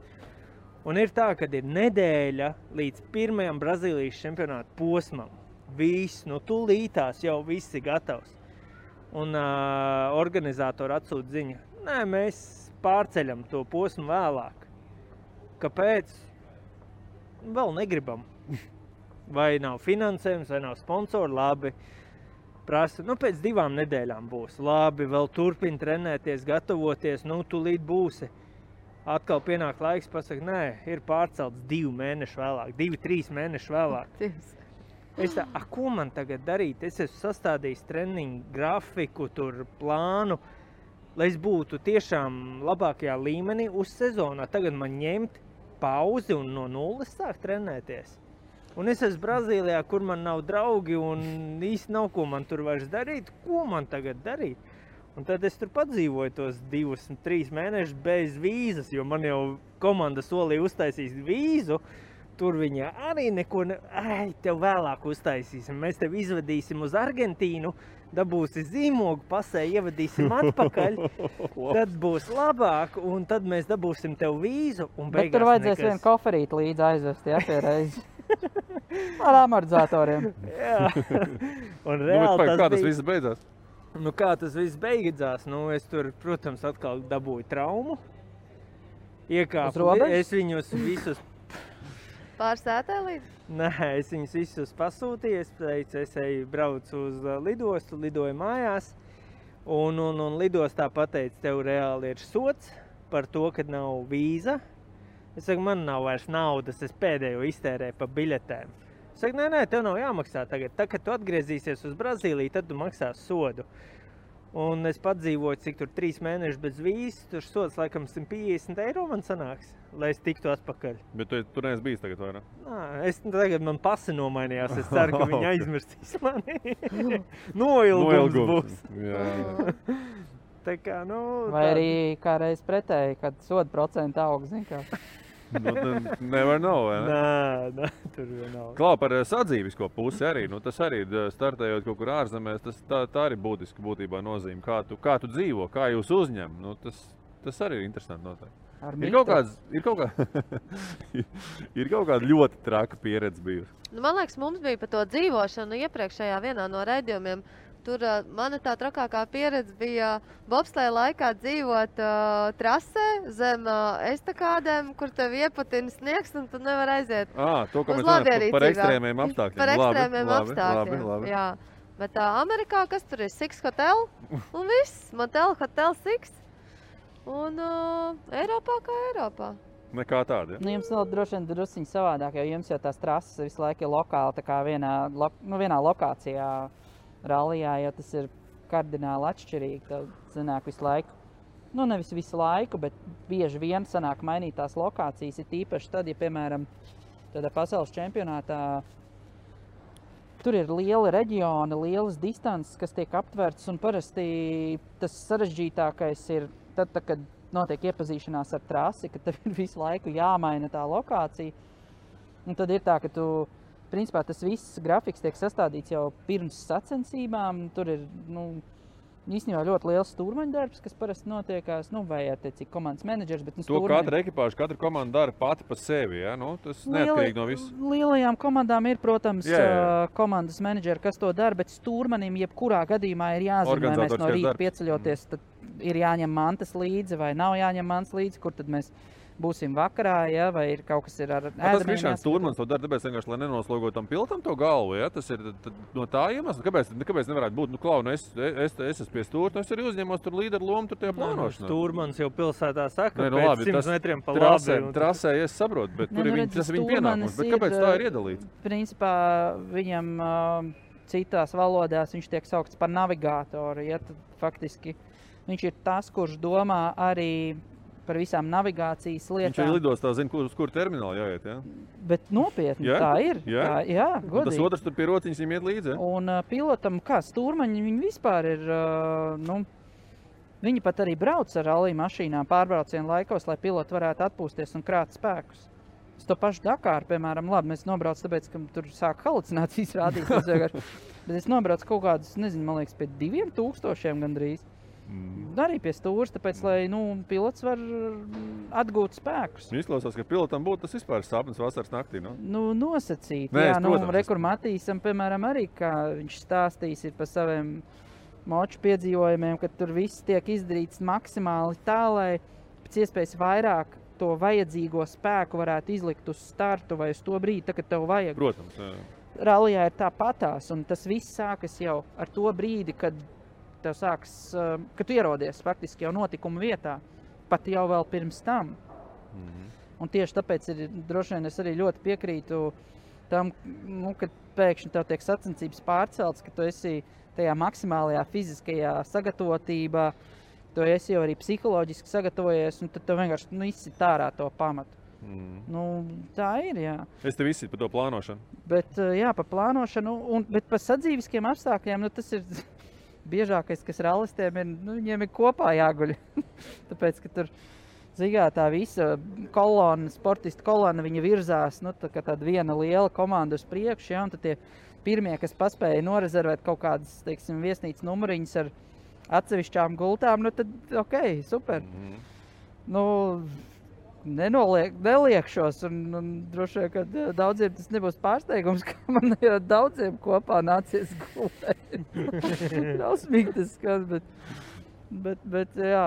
Un ir tā, kad ir nedēļa līdz pirmajam Brazīlijas čempionāta posmam. Viss, tūlītās jau viss ir gatavs. Un organizatori atsūta ziņa. Nē, mēs pārceļam to posmu vēlāk. Kāpēc? Vēl negribam. Vai nav finansējums, vai nav sponsori, labi. Prasa, pēc 2 nedēļām būs. Labi, vēl turpini trenēties, gatavoties, tūlīt būsi. Atkal pienāk laiks, pasaka, nē, ir pārcelts 2 mēnešu vēlāk, 2-3 mēnešu vēlāk. Es tā, ko man tagad darīt? Es esmu sastādījis treniņu grafiku, tur plānu, lai es būtu tiešām labākajā līmenī uz sezonā. Tagad man ņemt pauzi un no nulles sākt trenēties. Un es esmu Brazīlijā, kur man nav draugi un īsti nav, ko man tur vairs darīt. Ko man tagad darīt? Un tad es tur padzīvoju tos 2-3 mēnešus bez vīzas, jo man jau komanda solīja uztaisīt vīzu. Tur viņa arī neko tev vēlāk uztaisīsim. Mēs tev izvedīsim uz Argentīnu, dabūsi zīmogu, pasē ievadīsim atpakaļ. Tad būs labāk, un tad mēs dabūsim tev vīzu. Bet tur vajadzēs vienu koferīti līdzi aizvest, pie reizi. Ar amortizatoriem. Jā. Un reāli kā tas viss beidzās? Kā tas viss beidzās? Es tur, protams, atkal dabūju traumu. Iekāpu. Es viņus visus... Pārsētē līdz? Nē, es viņus visus pasūtīju. Es teicu, es braucu uz lidostu, lidoju mājās. Un lidostā pateicu, tev reāli ir sots par to, ka nav vīza. Es saku, man nav vairs naudas, es pēdējo iztērēju pa biļetēm. Es saku, nē, tev nav jāmaksā tagad. Tā, kad tu atgriezīsies uz Brazīliju, tad tu maksās sodu. Un es padzīvoju, cik tur 3 mēnešus bez vīzes, tur sods laikam 150 eiro man sanāks, lai es tiktu atpakaļ. Bet tu neesi bijis tagad, vai ne? Tagad man pasi nomainījās, es ceru, ka viņi aizmirstīs mani. Noilgums būs. Jā. Tā kā, vai arī kā reiz pretēji, kad soda procenti aug, zin kā. Nevar nav, vai ne? Nē, tur nav. Klau, par sadzīvisko pusi arī, tas arī startējot kaut kur ārzemēs, tā arī būtiski būtībā nozīme, kā tu dzīvo, kā jūs uzņem, tas arī ir interesanti noteikti. Ir kaut kāda ļoti traka pieredze bijusi. Man liekas, mums bija par to dzīvošanu iepriekšējā vienā no raidījumiem. Tur mana tā trakākā pieredze bija bobsleja laikā dzīvot trasē zem estakādēm, kur tev iepatina sniegs un tu nevar aiziet. To, ka mēs runājam par ekstrēmiem apstākļiem. Par ekstrēmiem apstākļiem, labi. Jā. Bet Amerikā, kas tur ir? Six Hotel un viss. Motel Hotel Six. Un Eiropā kā Eiropā. Nekā tāda, ja? Nu, jums vēl droši vien drusciņi savādāk, jo jums jau tās trases visu laiku ir lokāli, tā kā vienā lokācijā rallijā, jo tas ir kardināli atšķirīgi. Tad sanāk visu laiku, nu nevis visu laiku, bet bieži vien sanāk mainīt tās lokācijas. Ir tīpaši tad, ja, piemēram, tādā pasaules čempionātā tur ir lieli reģioni, lielas distances, kas tiek aptvertas, un parasti tas sarežģītākais ir tad, kad notiek iepazīšanās ar trasi, ka tev ir visu laiku jāmaina tā lokācija. Un tad ir tā, ka principā tas viss grafiks tiek sastādīts jau pirms sacensībām. Tur ir, īstenībā ļoti liels stūrmaņa darbs, kas parasti notiekās, vai attiecīgi komandas menedžers, bet To katra ekipāža, katra komanda dara pati pa sevi, ja? Tas neatkarīgi no viss. Lielajām komandām ir, protams, komandas menedžeri, kas to dara, bet stūrmanim jebkurā gadījumā ir jāzina, vai mēs no rīta pieceļoties, tad ir jāņem mantas līdzi vai nav jāņem mantas līdzi, kur tad mēs būsim vakarā, ja, vai ir kaut kas ir ar ēdamiem. Tas Krišāns Stūrmans to dara, tāpēc vienkārši, lai nenoslogotu tam pilotam to galvu, ja? Tas ir no tā iemesla. Kāpēc nevarētu būt? Es esmu pie stūra, es arī uzņemos tur līderu lomu tur tajā plānošanā. Stūrmans jau pilsētā saka, ka pēc 100 metriem pa labi. Trasē, es saprotu, bet tur tas ir viņa pienākums. Bet kāpēc tā ir iedalīts? Principā viņam citās valodās viņš tiek saukts par navigātoru. Ja, tad faktiski viņš ir tas, kurš domā arī par visām navigācijas lietām. Viņš arī lidostā zina, uz kur termināli jāiet, ja? Bet nopietni, tā ir. Jā, godīgi. Un tas otrs tur pie rociņas viņam iet līdzi, ja? Un pilotam, kā stūrmaņi, viņi vispār ir, viņi pat arī brauc ar rallija mašīnām pārbraucienu laikos, lai piloti varētu atpūsties un krāt spēkus. Es to pašu Dakāru, piemēram, labi, mēs nobrauc tāpēc, ka tur sāk halucinācijas rādīt. Bet es nobraucu kaut kādus, nezinu, man liekas, pie 2000 gandrīz. Arī pie stūras, tāpēc, lai pilots var atgūt spēkus. Izklausās, ka pilotam būtu tas vispār sapnis vasaras naktī, no? Nosacīt. Jā, Rekur Matīsam, piemēram, arī, kā viņš stāstīs par saviem moču piedzīvojumiem, ka tur viss tiek izdarīts maksimāli tā, lai pēc iespējas vairāk to vajadzīgo spēku varētu izlikt uz startu vai uz to brīdi, tā, kad tev vajag. Protams, jā. Rallijā ir tāpatās, un tas viss sākas jau ar to brīdi, kad tev sāks, kad tu ierodies faktiski jau notikuma vietā, pat jau vēl pirms tam. Un tieši tāpēc droši vien es arī ļoti piekrītu tam, kad pēkšņi tev tiek sacensības pārcelts, ka tu esi tajā maksimālajā fiziskajā sagatavotībā, tu esi jau arī psiholoģiski sagatavojies, un tad tev vienkārši izsit ārā to pamatu. Tā ir, jā. Es tev izsit par to plānošanu. Bet, jā, par plānošanu, bet par sadzīviskiem apstākļiem, tas ir biežākais, kas rallistiem ir, viņiem ir kopā jāguļ. Tāpēc, ka tur, tā visa kolona, sportistu kolona, viņa virzās, tā kā tāda viena liela komanda uz priekšu, ja, un tad tie pirmie, kas paspēja norezervēt kaut kādas, teiksim, viesnīcas numuriņas ar atsevišķām gultām, tad, super. Neliekšos, un droši vien, ka daudziem tas nebūs pārsteigums, ka man ir daudziem kopā nācies gulēt. Drausmīgi tas skan, bet jā,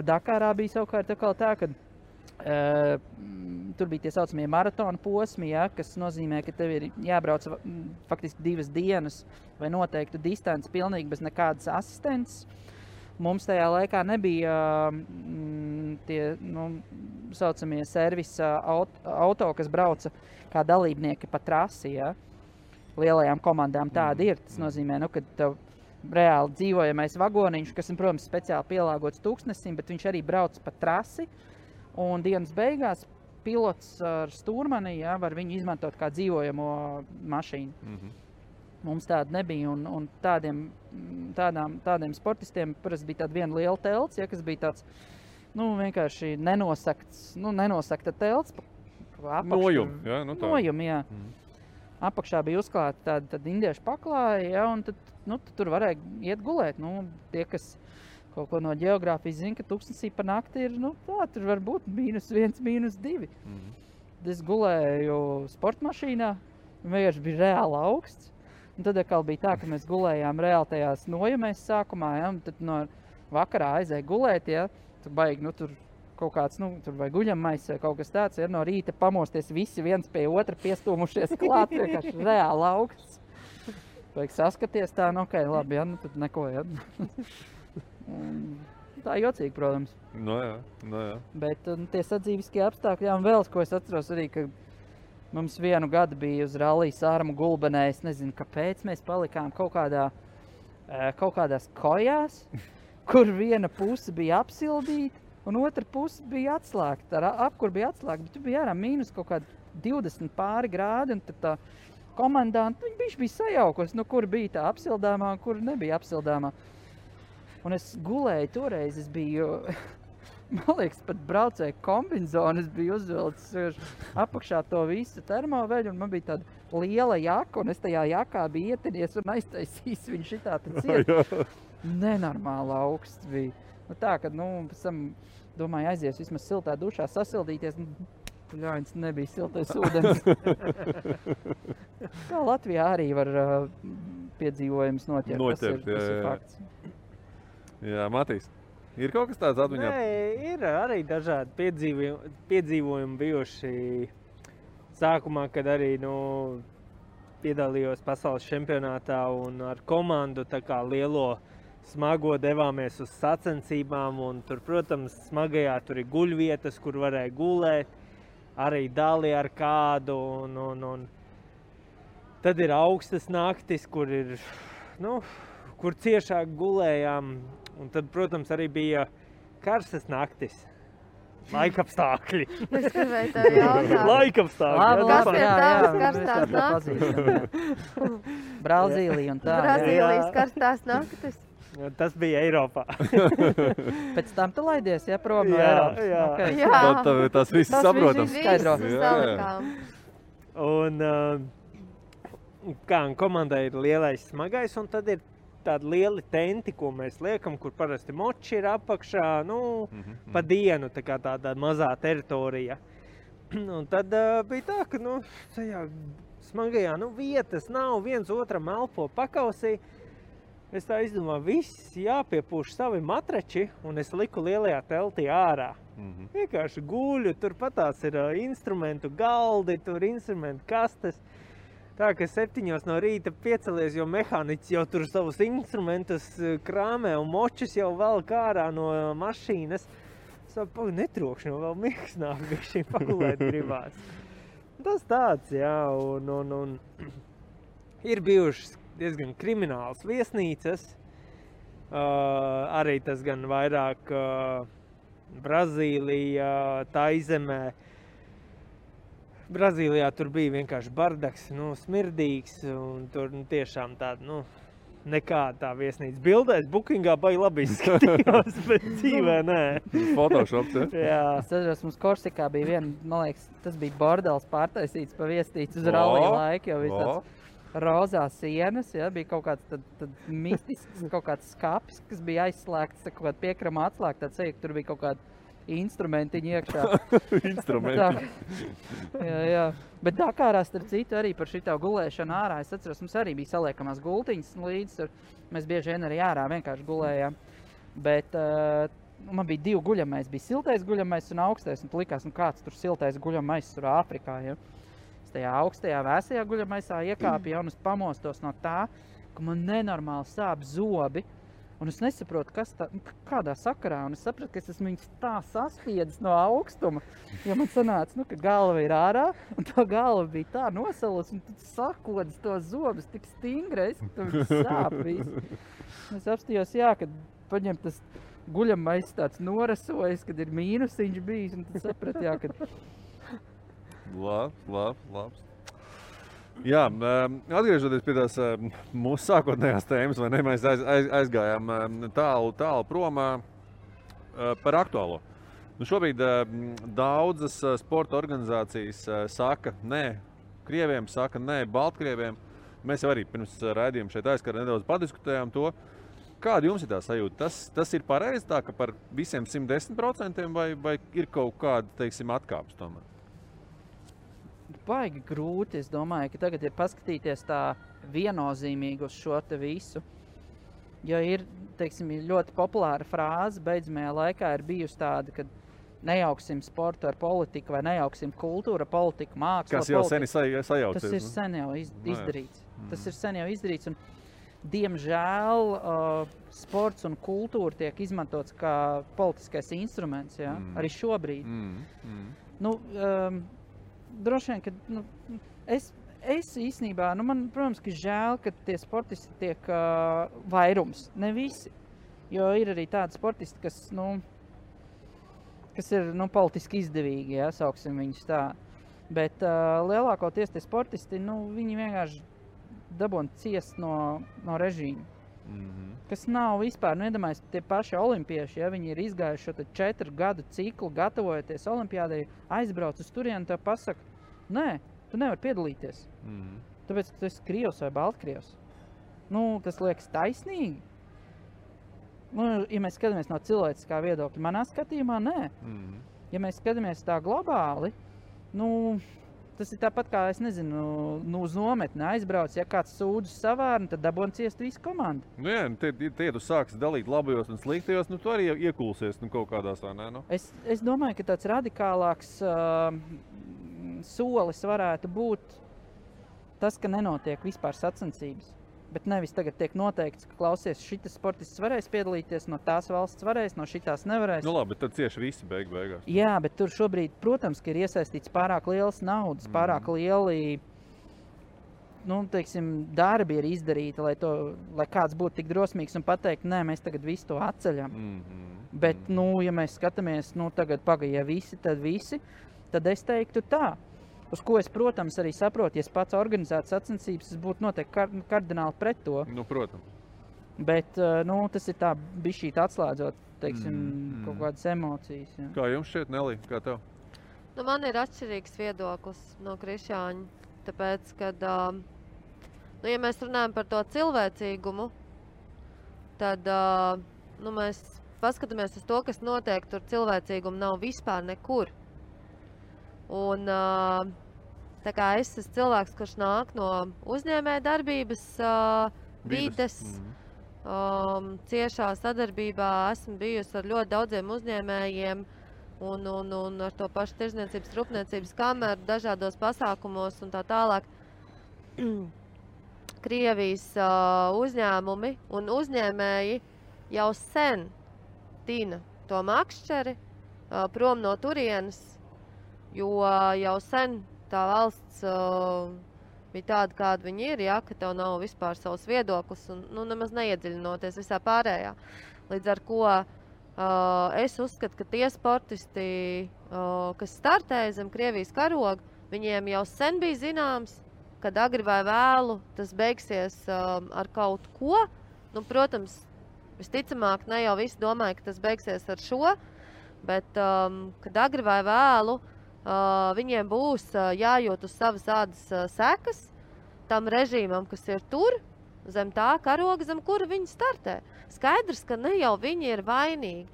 Dakārā bija savukārt tā, ka tur bija tie saucamie maratona posmi, ja, kas nozīmē, ka tev ir jābrauc faktiski 2 dienas vai noteiktu distanci pilnīgi bez nekādas asistences. Mums tajā laikā nebija tie saucamie servisa auto, kas brauca kā dalībnieki pa trasi. Ja? Lielajām komandām tāda ir. Tas nozīmē, ka tev reāli dzīvojamais vagoniņš, kas ir, protams, speciāli pielāgots tūkstnesim, bet viņš arī brauc pa trasi. Un dienas beigās pilots ar stūrmani, ja, var viņu izmantot kā dzīvojamo mašīnu. Mums tāda nebija, un tādiem sportistiem parasti bija tāda viena liela telts, ja, kas bija tāds, vienkārši nenosakta telts. Nojumi, jā, tā. Nojumi, jā. Apakšā bija uzklāta tāda indiešu paklāja, ja, un tad tur varēja iet gulēt. Tie, kas kaut ko no ģeogrāfijas zina, ka tūkstnesī pa nakti ir, tur var būt -1, -2. Es gulēju sportmašīnā, vienkārši bija reāli augsts. Un tad atkal bija tā, ka mēs gulējām reāli tajās nojumēs sākumā, ja, un tad no vakarā aizēja gulēt, ja, tur baigi, tur kaut kāds, tur vai guļammais vai kaut kas tāds, ja, no rīta pamosties visi viens pie otra piestūmušies klāt, vienkārši reāli augsts. Vajag saskaties tā, labi, ja, tad neko, ja. tā jocīgi, protams. No jā. Bet tie sadzīviskie apstākļi, jā, un vēl, ko es atceros arī, ka mums vienu gadu bija uz rallija Sārmu Gulbenē, es nezinu, kāpēc mēs palikām kaut kādās kojās, kur viena puse bija apsildīta, un otra puse bija atslēgta, apkur bija atslēgta, bet tu bija ārā mīnus kaut kādi 20 pāri grādi, un tad tā komandanta, viņš bija sajaukos, nu, kur bija tā apsildāmā, un kur nebija apsildāmā. Un es gulēju toreiz, es biju, man liekas, pat braucēju kombinzonu, es biju uzvilcis apakšā to visu termoveļu, un man bija tāda liela jaka, un es tajā jakā biju ietinies un aiztaisījis viņu šitā tad ciet. Nenormāli augsts bija. Nu tā, kad, pēc tam, domāju, aizies vismaz siltā dušā sasildīties, ļauņas nebija siltais ūdens. Kā Latvijā arī var piedzīvojums noķert, tas ir fakts. Jā, Matīs, ir kaut kas tāds atmiņā? Nē, ir arī dažādi piedzīvojumi bijuši sākumā, kad arī, piedalījos pasaules čempionātā un ar komandu tā kā lielo smago devāmies uz sacensībām un tur, protams, smagajā tur ir guļvietas, kur varēja gulēt, arī dali ar kādu un tad ir augstas naktis, kur ir, kur ciešāk gulējām. Un tad, protams, arī bija karstas naktis. Laikapstākļi. Es gribēju tev jautāt. Laikapstākļi. Kas ir tavas karstās naktis? Brazīlija un tā. Brazīlijas karstās naktis. Tas bija Eiropā. Pēc tam tu laidies, ja, prom no Eiropas? Jā. Okay. Jā. Tas viss saprotams. Visus salikām. Un komandai ir lielais smagais, un tad ir tādi lieli tenti, ko mēs liekam, kur parasti moči ir apakšā, pa dienu, tā kā tāda mazā teritorija. Un tad bija tā, ka, tajā smagajā, vietas nav, viens otram elpo pakausī. Es tā izdomāju, viss jāpiepūš savi matrači, un es liku lielajā teltī ārā. Vienkārši guļu, tur patās ir instrumentu galdi, tur instrumentu kastes. Tā, ka 7 no rīta piecelies, jo mehāniķis jau tur savus instrumentus krāmē un močus jau velk ārā no mašīnas. Es savu, netrokšņo, vēl miegs nāk, bišķiņ pagulēt gribās. Tas tāds, jā, un ir bijušas diezgan krimināls viesnīcas. Arī tas gan vairāk Brazīlija, Taizemē. Brazīlijā tur bija vienkārši bardaks, smirdīgs, un tur tiešām tāda, nekāda tā viesnīca. Bildēs Bookingā baigi labi izskatījās, bet dzīvē nē. Photoshops, ja? Jā. Es atceros, mums Korsikā bija viena, man liekas, tas bija bordels pārtaisīts pa viesnīcu uz rallija laiku, jo bija tāds rozā sienas, ja, bija kaut kāds tad mistisks, kaut kāds skapis, kas bija aizslēgts, kaut kāda piekrama atslēgta, tāds seja, ka tur bija kaut kāda instrumentiņi iekšā. Instrumentiņi. Jā. Bet Dakārā, starp citu, arī par šitā gulēšanu ārā, es atceros, mums arī bija saliekamās gultiņas līdz, mēs bieži vien arī ārā vienkārši gulējām. Bet man bija 2 guļamais, bija siltais guļamais un augstais, un likās, kāds tur siltais guļamais tur Āfrikā, ja. Es tajā augstajā vēsajā guļamaisā iekāpju un es pamostos no tā, ka man nenormāli sāp zobi. Un es nesaprotu, kādā sakarā, un es sapratu, ka es esmu viņus tā saspiedis no augstuma, jo man sanāca, ka galva ir ārā, un tā galva bija tā nosalus, un tad sakodas to zobus tik stingrais, ka tu viņus sāp visu. Es apstījos, kad paņem tas guļamais tāds norasojas, kad ir mīnusiņš bijis, un tad sapratu, ka... Labs. Jā, atgriežoties pie tās mūsu sākotnējās tēmas, vai ne, mēs aizgājām tālu prom par aktuālo. Šobrīd daudzas sporta organizācijas saka nē krieviem, saka nē Baltkrieviem. Mēs jau arī pirms raidījuma šeit aizkārt nedaudz padiskutējām to. Kāda jums ir tā sajūta? Tas ir pareizi tā, ka par visiem 110% vai ir kaut kāda, teiksim, atkāpes tomēr? Baigi grūti, es domāju, ka tagad ir paskatīties tā viennozīmīgi uz šo te visu. Jo ir, teiksim, ļoti populāra frāze, beidzamajā laikā ir bijusi tāda, ka nejauksim sportu ar politiku vai nejauksim kultūru, politiku, mākslu. Kas jau sen sajaucies. Tas ir sen jau izdarīts. Tas ir sen jau izdarīts. Un diemžēl sports un kultūra tiek izmantots kā politiskais instruments, ja? Arī šobrīd. Nu, droši vien, ka es īstenībā, man, protams, ka žēl, ka tie sportisti tiek vairums, ne visi. Jo ir arī tādi sportisti, kas ir politiski izdevīgi, ja, sauksim viņus tā. Bet lielākoties tie sportisti, viņi vienkārši dabūna ciest no režīma. Kas nav vispār, iedomājies, tie paši olimpieši, ja viņi ir izgājuši šo 4 gadu ciklu, gatavojoties olimpiādai, aizbrauc uz turieni, tev pasaka, nē, tu nevari piedalīties. Tāpēc, ka tu esi Krievs vai Baltkrievs. Tas liekas taisnīgi. Ja mēs skatāmies no cilvēciskā viedokļa, manā skatījumā, nē. Ja mēs skatāmies tā globāli, tas ir tāpat kā, es nezinu, uz nometni aizbrauc, ja kāds sūdzas savārni, tad dabūna ciest visu komandu. Tie tu sāksi dalīt labajos un sliktajos, tu arī iekulsies kaut kādās, vai ne? Es domāju, ka tāds radikālāks solis varētu būt tas, ka nenotiek vispār sacensības. Bet nevis tagad tiek noteikts, ka klausies, šitas sportists varēs piedalīties, no tās valsts varēs, no šitās nevarēs. Labi, bet tad cieši visi beigās. Jā, bet tur šobrīd, protams, ka ir iesaistīts pārāk lielas naudas, pārāk lieli, darbi ir izdarīti, lai kāds būtu tik drosmīgs un pateikt, nē, mēs tagad visu to atceļam. Bet, ja mēs skatāmies, tagad pagaidīja visi, tad es teiktu tā. Uz ko es, protams, arī saprotu, ja es pats organizētu sacensības, es būtu noteikti kardināli pret to. Protams. Bet, tas ir tā bišķīt atslēdzot, kaut kādas emocijas. Jā. Kā jums šķiet, Nelī? Kā tev? Man ir atšķirīgs viedoklis no Krišāņa, tāpēc, kad, ja mēs runājam par to cilvēcīgumu, tad, mēs paskatāmies uz to, kas notiek, tur cilvēcīgumu nav vispār nekur. Un tā kā es esmu cilvēks, kurš nāk no uzņēmēja darbības vides, ciešā sadarbībā esmu bijusi ar ļoti daudziem uzņēmējiem un ar to pašu tirzniecības, rūpniecības kameru dažādos pasākumos un tā tālāk. Krievijas uzņēmumi un uzņēmēji jau sen tina to makšķeri prom no turienes, jo jau sen tā valsts bija tāda, kāda viņi ir, ja, ka tev nav vispār savs viedoklis un nemaz neiedziļinoties visā pārējā. Līdz ar ko es uzskatu, ka tie sportisti, kas startēja zem Krievijas karoga, viņiem jau sen bija zināms, kad agri vai vēlu tas beigsies ar kaut ko. Protams, visticamāk, ne jau visi domāja, ka tas beigsies ar šo, bet kad agri vai vēlu viņiem būs jājūt uz savas ādas sekas tam režīmam, kas ir tur, zem tā karoga, zem kura viņi startē. Skaidrs, ka ne jau viņi ir vainīgi.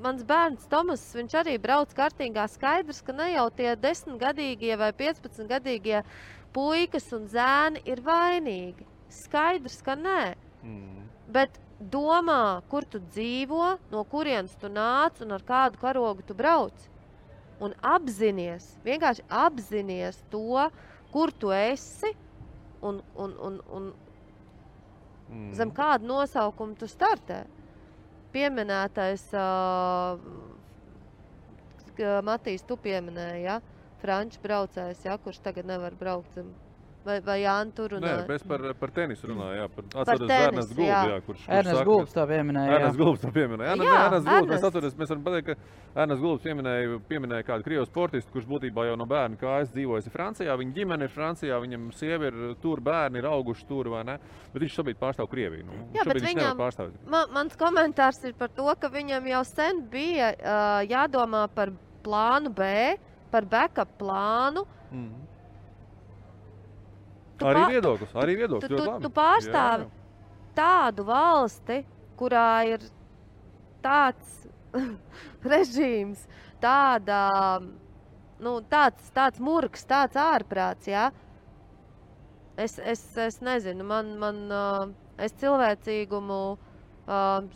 Mans bērns Tomas, viņš arī brauc kartīgā, skaidrs, ka ne jau tie 10-gadīgie vai 15-gadīgie puikas un zēni ir vainīgi. Skaidrs, ka nē. Bet domā, kur tu dzīvo, no kurienes tu nāc un ar kādu karogu tu brauc. Un vienkārši apzinies to, kur tu esi un zem kādu nosaukumu tu startē. Pieminētais, Matīs, tu pieminēji, ja? Franču braucējs, ja? Kurš tagad nevar braukt zem. Vai Jāni tur runāja? Nē, mēs par tenisu runāju, jā. Atceros Ernsts Gulbs, jā, kurš Ernsts Gulbs to pieminēja, jā. Ernsts Gulbs to pieminēja. Ernsts Gulbs, mēs atceros, mēs varam pateikt, ka Ernsts Gulbs pieminēja kādu krievu sportistu, kurš būtībā jau no bērna kājas dzīvojas Francijā, viņa ģimene ir Francijā, viņam sieva ir tur, bērni ir auguši tur, vai ne? Bet viņš šobrīd pārstāv Krieviju. Jā, bet viņam, mans komentārs ir par to, ka viņam jau sen bija jādomā par plānu B, par backup plānu. Arī viedoklis. Tu pārstāvi tādu valsti, kurā ir tāds režīms, tāds murgs, tāds ārprāts, jā. Es nezinu, es cilvēcīgumu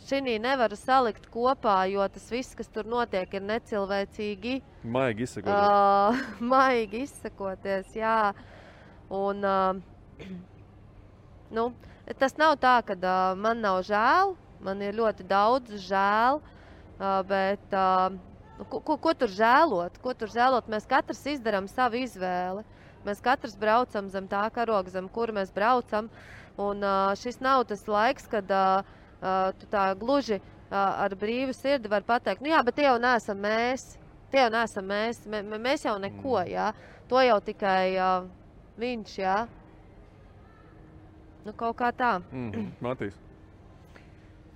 šinī nevaru salikt kopā, jo tas viss, kas tur notiek, ir necilvēcīgi. Maigi izsakoties. Jā. Un Nu, tas nav tā, ka man nav žēl, man ir ļoti daudz žēl, bet ko tur žēlot? Ko tur žēlot? Mēs katrs izdarām savu izvēli. Mēs katrs braucam zem tā karoga, zem kura mēs braucam. Un šis nav tas laiks, kad tu tā gluži ar brīvu sirdi var pateikt, nu jā, bet tie jau neesam mēs. Tie jau neesam mēs. Mēs jau neko, jā. To jau tikai viņš, jā. Nu, kaut kā tā. Matīs.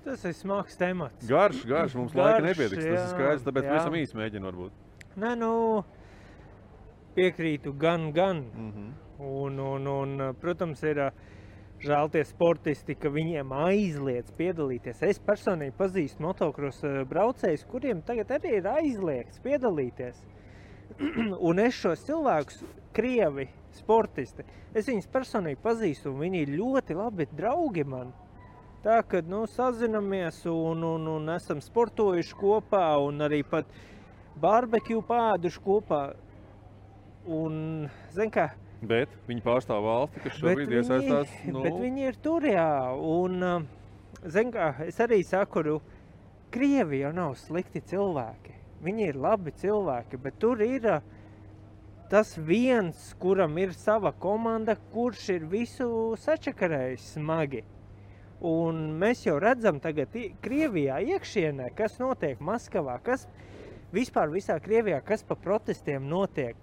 Tas ir smags temats. Garš, mums laika nepietiks. Tas ir skaidrs, tāpēc visam īsi mēģinu varbūt. Nē, nu, piekrītu gan. Un, protams, ir žēl tie sportisti, ka viņiem aizliedz piedalīties. Es personīgi pazīstu motokros braucējus, kuriem tagad arī ir aizliegts piedalīties. Un es šos cilvēkus, krievi, sportisti, es viņus personīgi pazīstu, un viņi ir ļoti labi draugi man. Tā, kad, nu, sazinamies un esam sportojuši kopā, un arī pat barbekju pāduši kopā. Un, zin kā, bet viņi pārstāv valsti, kas šobrīd iesaistās. Bet viņi ir tur, jā. Un, zin kā, es arī saku, Krievi jau nav slikti cilvēki. Viņi ir labi cilvēki, bet tur ir tas viens, kuram ir sava komanda, kurš ir visu sačakarējis smagi. Un mēs jau redzam tagad Krievijā iekšienē, kas notiek Maskavā, kas vispār visā Krievijā, kas pa protestiem notiek.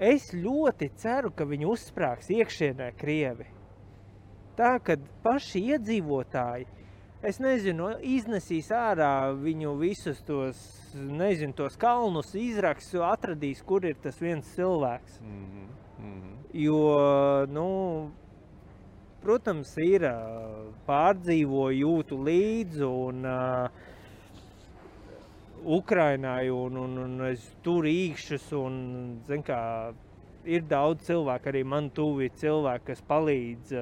Es ļoti ceru, ka viņi uzsprāgs iekšienē Krievi. Tā, kad paši iedzīvotāji, es nezinu, iznesīs ārā viņu visus tos, nezinu, tos kalnus, izraks, atradīs, kur ir tas viens cilvēks. Jo, nu, protams, ir pārdzīvo, jūtu līdzi un Ukrainai un es tur īkšķus un, zin kā, ir daudz cilvēku, arī man tuvi cilvēki, kas palīdz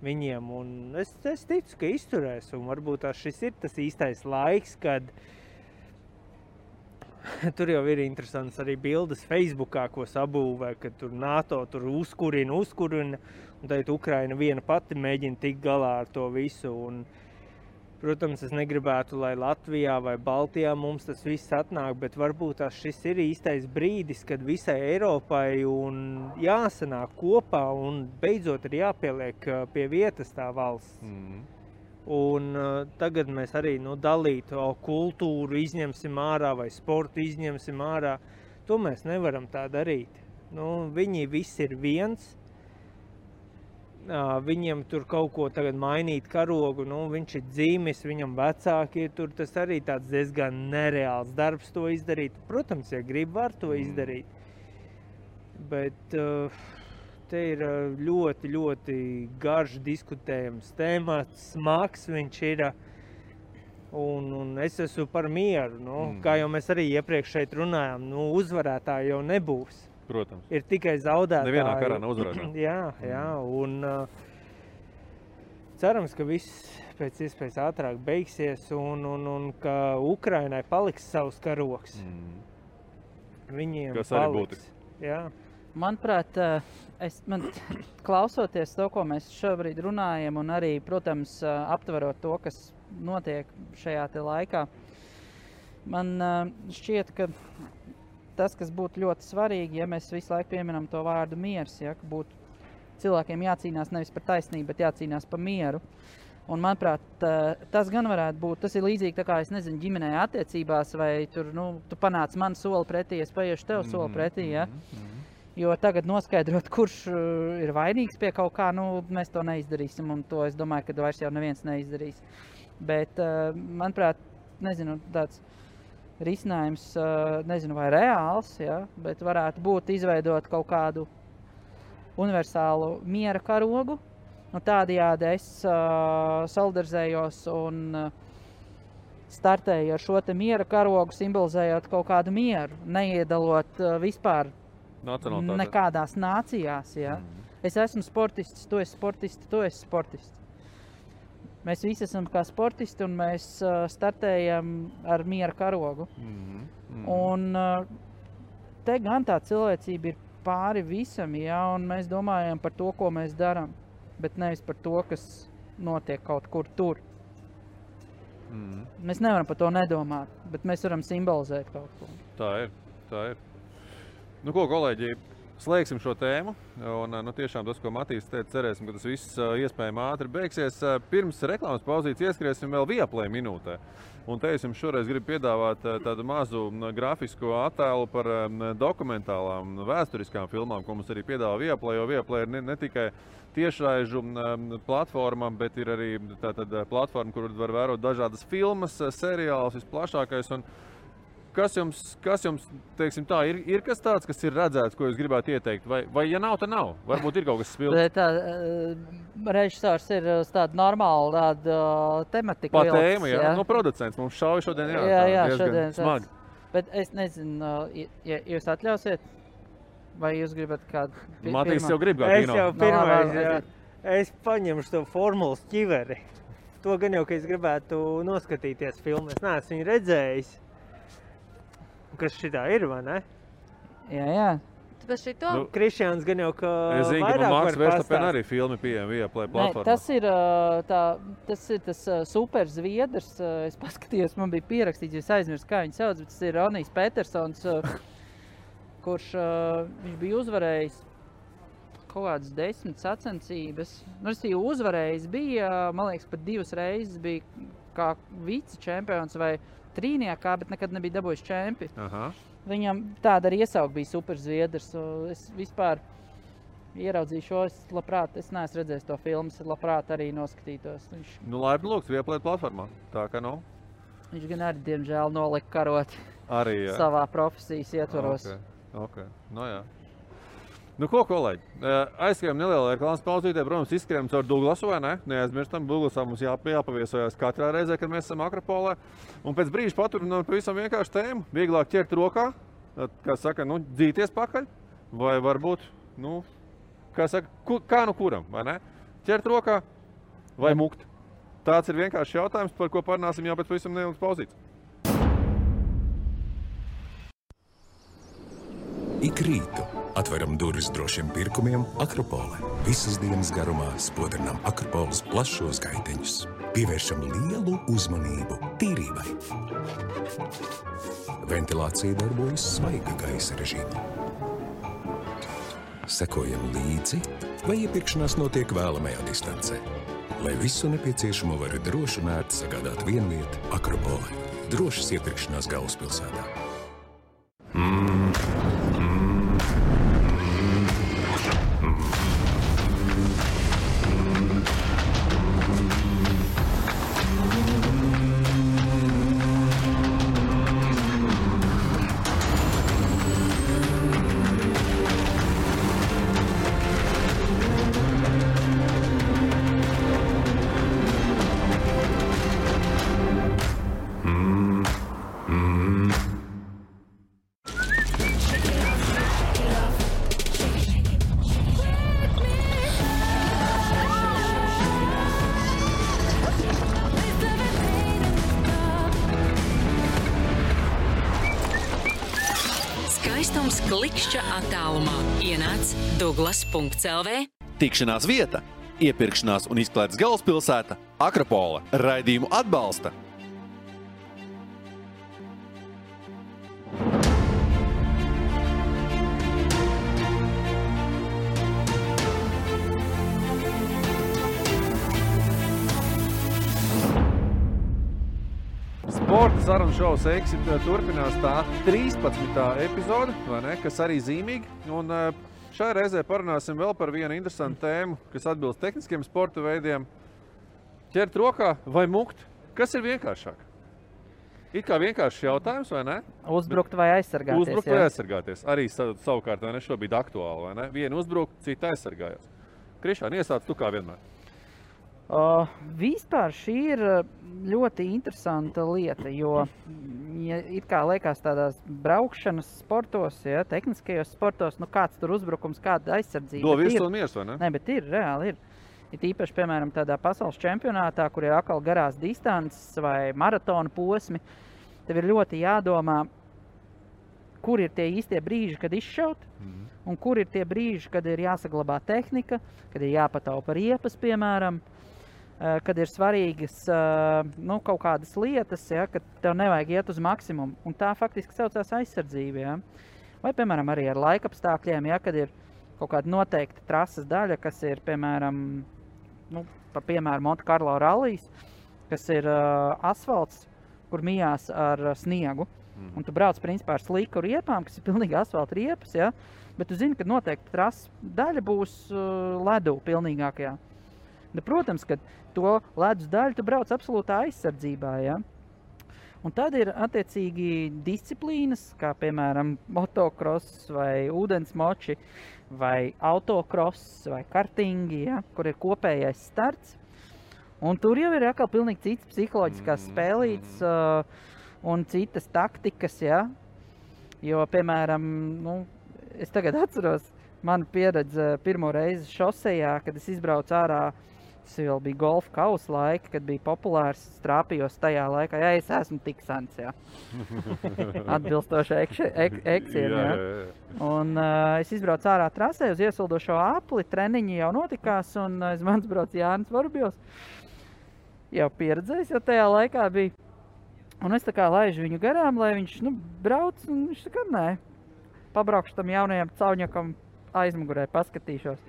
viņiem. Un es ticu, ka izturēs un varbūt šis ir tas īstais laiks, kad tur jau ir interesants arī bildes Facebookā, ko sabūvē, kad tur NATO tur uzkurina, un tagad Ukraina viena pati mēģina tikt galā ar to visu. Un, protams, es negribētu, lai Latvijā vai Baltijā mums tas viss atnāk, bet varbūt šis ir īstais brīdis, kad visai Eiropai un jāsanāk kopā un beidzot ir jāpieliek pie vietas tā valsts. Un tagad mēs arī dalītu kultūru izņemsim ārā vai sportu izņemsim ārā. To mēs nevaram tā darīt. Viņi visi ir viens. Viņiem tur kaut ko tagad mainīt karogu, viņš ir dzīmis, viņam vecāki ir tur, tas arī tāds diezgan nereāls darbs to izdarīt. Protams, ja grib, var to izdarīt. Bet te ir ļoti, ļoti garš diskutējams temats, smags viņš ir. Un es esmu par mieru, kā jau mēs arī iepriekš šeit runājām, uzvarētāji jau nebūs. Protams. Ir tikai zaudētāji. Nevienā karā nav uzvarētāji. Jā, un cerams, ka viss pēc iespējas ātrāk beigsies un ka Ukrainai paliks savs karogs. Viņiem kas arī būtiski. Jā. Manuprāt, klausoties to, ko mēs šobrīd runājam, un arī, protams, aptverot to, kas notiek šajā te laikā, man šķiet, ka tas, kas būtu ļoti svarīgi, ja mēs visu laiku pieminam to vārdu miers, ja, ka būtu cilvēkiem jācīnās nevis par taisnību, bet jācīnās par mieru. Un, manuprāt, tas gan varētu būt, tas ir līdzīgi tā kā, es nezinu, ģimenē attiecībās, vai tur, tu panāc man soli pretī, es paiešu tev soli pretī, ja. Jo tagad noskaidrot, kurš ir vainīgs pie kaut kā, mēs to neizdarīsim, un to es domāju, ka vairs jau neviens neizdarīs. Bet, manuprāt, nezinu, tāds risinājums, nezinu, vai reāls, ja, bet varētu būt izveidot kaut kādu universālu miera karogu. Tādējādi es solidarizējos un startēju ar šo te miera karogu, simbolizējot kaut kādu mieru, neiedalot vispār nekādās nācijās. Ja. Es esmu sportists, tu esi sportists, tu esi sportists. Mēs visi esam kā sportisti un mēs startējam ar miera karogu. Un te gan tā cilvēcība ir pāri visam, ja, un mēs domājam par to, ko mēs darām. bet nevis par to, kas notiek kaut kur tur. Mēs nevaram par to nedomāt, bet mēs varam simbolizēt kaut ko. Tā ir. Nu ko, kolēģi, slēgsim šo tēmu. Un, tiešām tas, ko Matīs teica, cerēsim, ka tas viss iespējami ātri beigsies. Pirms reklāmas pauzītes ieskriesim vēl Viaplay minūtē. Un te es jums šoreiz gribu piedāvāt tādu mazu grafisko attēlu par dokumentālām, vēsturiskām filmām, ko mums arī piedāvā Viaplay, jo Viaplay ir ne tikai tiešraižu platforma, bet ir arī platforma, kur var vērot dažādas filmas, seriālus, visplašākais. Un kas jums, teiksim tā, ir kas tāds, kas ir redzēts, ko jūs gribētu ieteikt? Vai ja nav, tad nav? Varbūt ir kaut kas spilgts. Režisors ir tāda normāla tematika. Pa tēma, jā. No producents mums šauja šodien, jā, diezgan smagi. Bet es nezinu, ja jūs atļausiet, vai jūs gribat kādu pirmā? Matīs jau grib kā kino. Es jau pirmais, jā. Es paņemšu to formulas ķiveri. To gan jau, ka es gribētu noskatīties filmu. Es neesmu viņu redzējis. Kas šitā ir, vai ne? Jā. Tāpēc šito? Krišjāns gan jau, ka es zinu, ka vairāk Maks var Verstappen arī filmi pieejami Viaplay platformā. Tas ir tas super zviedrs. Es paskatījos, man bija pierakstīts, jo es aizmirsu, kā viņu sauc, bet tas ir Ronijs Petersons, kurš viņš bija uzvarējis kaut kādas 10 sacensības. Uzvarējis bija, man liekas, pat 2 reizes bija kā vice čempions vai trīniekā, bet nekad nebija dabūjis čempi. Viņam tāda arī iesauka bija super zviedrs. Es vispār ieraudzīju šo, es neesmu redzējis to filmu, es labprāt arī noskatītos. Laipni lūgts Viaplay platformā, tā ka nav. Viņš gan arī, diemžēl, nolika karot arī, savā profesijas ietvaros. Okay. Jā. Nu ko, kolēģi, aizskrējam nelielā reklāmas pauzītē, protams, izskrējam caur Douglasu, vai ne? Neaizmirstam, Douglasā mums jāpaviesojās katrā reizē, kad mēs esam Akropolē. Un pēc brīža paturinām pavisam vienkārši tēmu, vieglāk ķert rokā, kā saka, dzīties pakaļ, vai varbūt, kā saka, kā kuram, vai ne? Ķert rokā vai mukt. Tāds ir vienkārši jautājums, par ko parunāsim jau pēc pavisam nelielas pauzītes. Ik rītu atveram durvis drošiem pirkumiem Akropole. Visas dienas garumā spodrinām Akropoles plašos gaiteņus. Pievēršam lielu uzmanību tīrībai. Ventilācija darbojas svaiga gaisa režīmā. Sekojam līdzi, vai iepirkšanās notiek vēlamajā distancē. Lai visu nepieciešamo var droši un ērti sagādāt vienvieta Akropole. Drošas iepirkšanās galvaspilsētā. Skaistums klikšķa attālumā. Ienāc Douglas.lv. Tikšanās vieta, iepirkšanās un izklaides galvaspilsēta Akropole. Raidījumu atbalsta Sporta sarunu šovs Exit turpinās tā 13. epizode, vai ne, kas arī zīmīgi. Un šajā reizē parunāsim vēl par vienu interesantu tēmu, kas atbilst tehniskiem sporta veidiem. Ķert rokā vai mukt? Kas ir vienkāršāk? It kā vienkāršs jautājums, vai ne? Uzbrukt vai aizsargāties. Uzbrukt vai aizsargāties. Arī savukārt, vai ne, šobrīd aktuāli, vai ne? Vienu uzbrukt, citu aizsargājās. Krišān, iesāc tu kā vienmēr. Vispār šī ir ļoti interesanta lieta, jo it kā liekas tādās braukšanas sportos, tehniskajos sportos, kāds tur uzbrukums, kāda aizsardzība. Do virs un miers, vai ne? Ne, bet ir, reāli ir. Ir īpaši, piemēram, tādā pasaules čempionātā, kur ir atkal garās distances vai maratona posmi, tev ir ļoti jādomā, kur ir tie īstie brīži, kad izšaut, un kur ir tie brīži, kad ir jāsaglabā tehnika, kad ir jāpataupa riepas, piemēram, kad ir svarīgas kaut kādas lietas, ja, kad tev nevajag iet uz maksimumu. Un tā faktiski saucās aizsardzība. Ja. Vai, piemēram, arī ar laikapstākļiem, ja, kad ir kaut kāda noteikta trases daļa, kas ir, piemēram, piemēram, Monte Carlo rallijas, kas ir asfalts, kur mijās ar sniegu. Un tu brauc principā ar sliku riepām, kas ir pilnīgi asfalta riepas, ja? Bet tu zini, ka noteikti trases daļa būs ledu pilnīgākajā. Protams, ka to ledus daļu tu brauc absolūtā aizsardzībā, ja? Un tad ir attiecīgi disciplīnas, kā piemēram motocross vai ūdensmoči vai autocross vai kartingi, ja? Kur ir kopējais starts. Un tur jau ir atkal pilnīgi cits psiholoģiskās spēlītes un citas taktikas, ja? Jo, piemēram, es tagad atceros manu pieredzi pirmo reizi šosejā, kad es izbraucu ārā, tas vēl bija golfa kausa laika, kad bija populārs, strāpījos tajā laikā, ja es esmu tik sens, ja? Atbilstoši eksiem, ja? Un es izbraucu ārā trasē uz iesildošo apli, treniņi jau notikās, un aiz manis brauc Jānis Vorobjovs. Jau pieredzējis, jau tajā laikā bija. Un es tā kā laižu viņu garām, lai viņš brauc, un viņš tā kā nē. Pabraukšu tam jaunajam cauņakam aizmugurē, paskatīšos.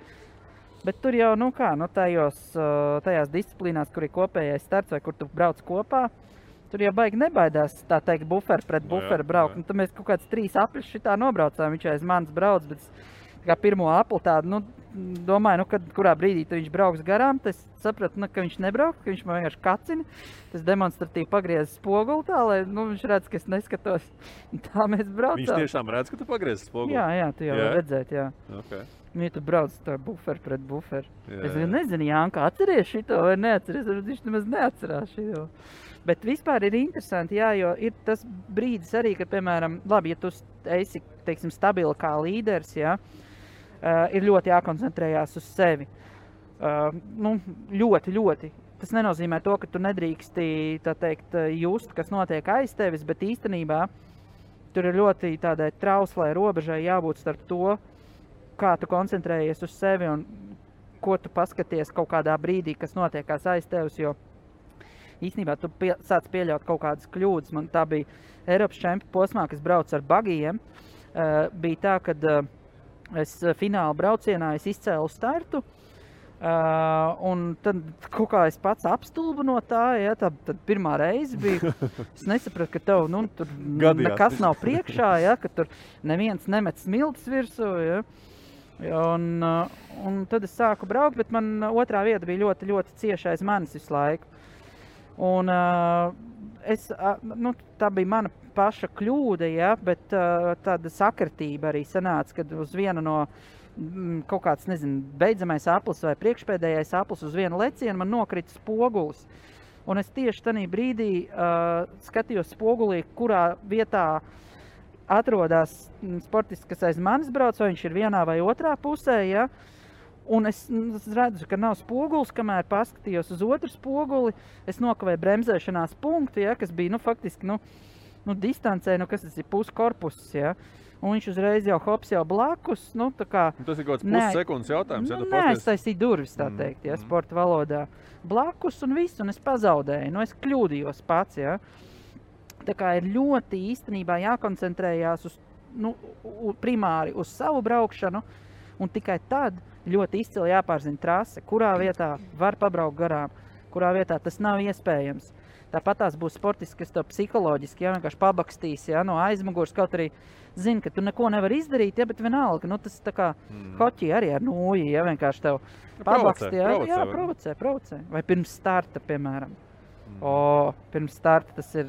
Bet tur jau, tajās disciplīnās, kur ir kopējais starts vai kur tu brauc kopā, tur jau baigi nebaidās, tā teikt, buferi pret buferi braukt. Un tad mēs kaut kāds 3 apļus šitā nobraucām, viņš aiz manis brauc, bet kā pirmo apli tādu, domāju, kad kurā brīdī viņš brauks garām, tad es sapratu, ka viņš nebrauks, ka viņš man vienkārši kacina. Tas demonstratīvi pagriezis spoguli tā, lai viņš redz, ka es neskatos. Tā mēs braucām. Viņš tiešām redz, ka tu pagriezis spoguli? Jā, tu jau redzēt, jā. Okay. Ja tu brauc tā buferi pret buferi. Es nezinu, Jānka, atceries šito vai neatceries, viņš nemaz neatcerās šito. Bet vispār ir interesanti, jā, jo ir tas brīdis arī, kad, piemēram, labi, ja tu esi, teiksim, stabili kā līderis, jā, ir ļoti jākoncentrējās uz sevi. Ļoti. Tas nenozīmē to, ka tu nedrīksti, tā teikt, just, kas notiek aiz tevis, bet īstenībā tur ir ļoti tādai trauslai robežai jābūt starp to, kā tu koncentrējies uz sevi un ko tu paskaties kaut kādā brīdī, kas notiekās aiz tevis, jo īstenībā tu sāc pieļaut kaut kādas kļūdas. Man tā bija Eiropas čempionu posmā, kas brauc ar bagijiem. Bija tā, kad es fināla braucienā izcēlu startu, un tad kaut kā es pats apstulbu no tā, ja, tad pirmā reize bija, es nesapratu, ka tev, tur nekas nav priekšā, ja, ka tur neviens nemet smiltis virsū, ja, un tad es sāku braukt, bet man otrā vieta bija ļoti, ļoti cieši aiz manis visu laiku. Un tā bija mana paša kļūda, ja, bet tāda sakritība arī sanāca, kad uz vienu no kaut kāds, beidzamais aplis vai priekšpēdējais aplis uz vienu lecienu man nokrita spogulis. Un es tieši tajā brīdī skatījos spogulī, kurā vietā atrodas sportists, kas aiz manis brauc, vai viņš ir vienā vai otrā pusē, ja. Un es redzu, ka nav spogulis, kamēr paskatījos uz otru spoguli, es nokavēju bremzēšanās punktu, ja, kas bija, faktiski, distancē, kas tas ir puskorpuss, ja. Un viņš uzreiz jau hops jau blakus, tā kā... Tas ir kaut kāds pussekundes jautājums, ja tu pasties? Neaiztaisīju durvis, tā teikt, ja, sporta valodā. Blakus un viss, un es pazaudēju, es kļūdījos pats, ja. Tā kā ir ļoti īstenībā jākoncentrējās uz, primāri uz savu braukšanu, un tikai tad ļoti izcili jāpārzina trase, kurā vietā var pabraukt garām, kurā vietā tas nav iespējams. Tāpat tās būs sportisti, kas tev psiholoģiski, ja, vienkārši pabakstīs, ja, no aizmugurs, kaut arī zini, ka tu neko nevar izdarīt, ja, bet vienalga, tas tā kā hoķi arī ar nūji, ja, vienkārši tev pabakstī, ja, provocē. Vai pirms starta, piemēram. Pirms starta tas ir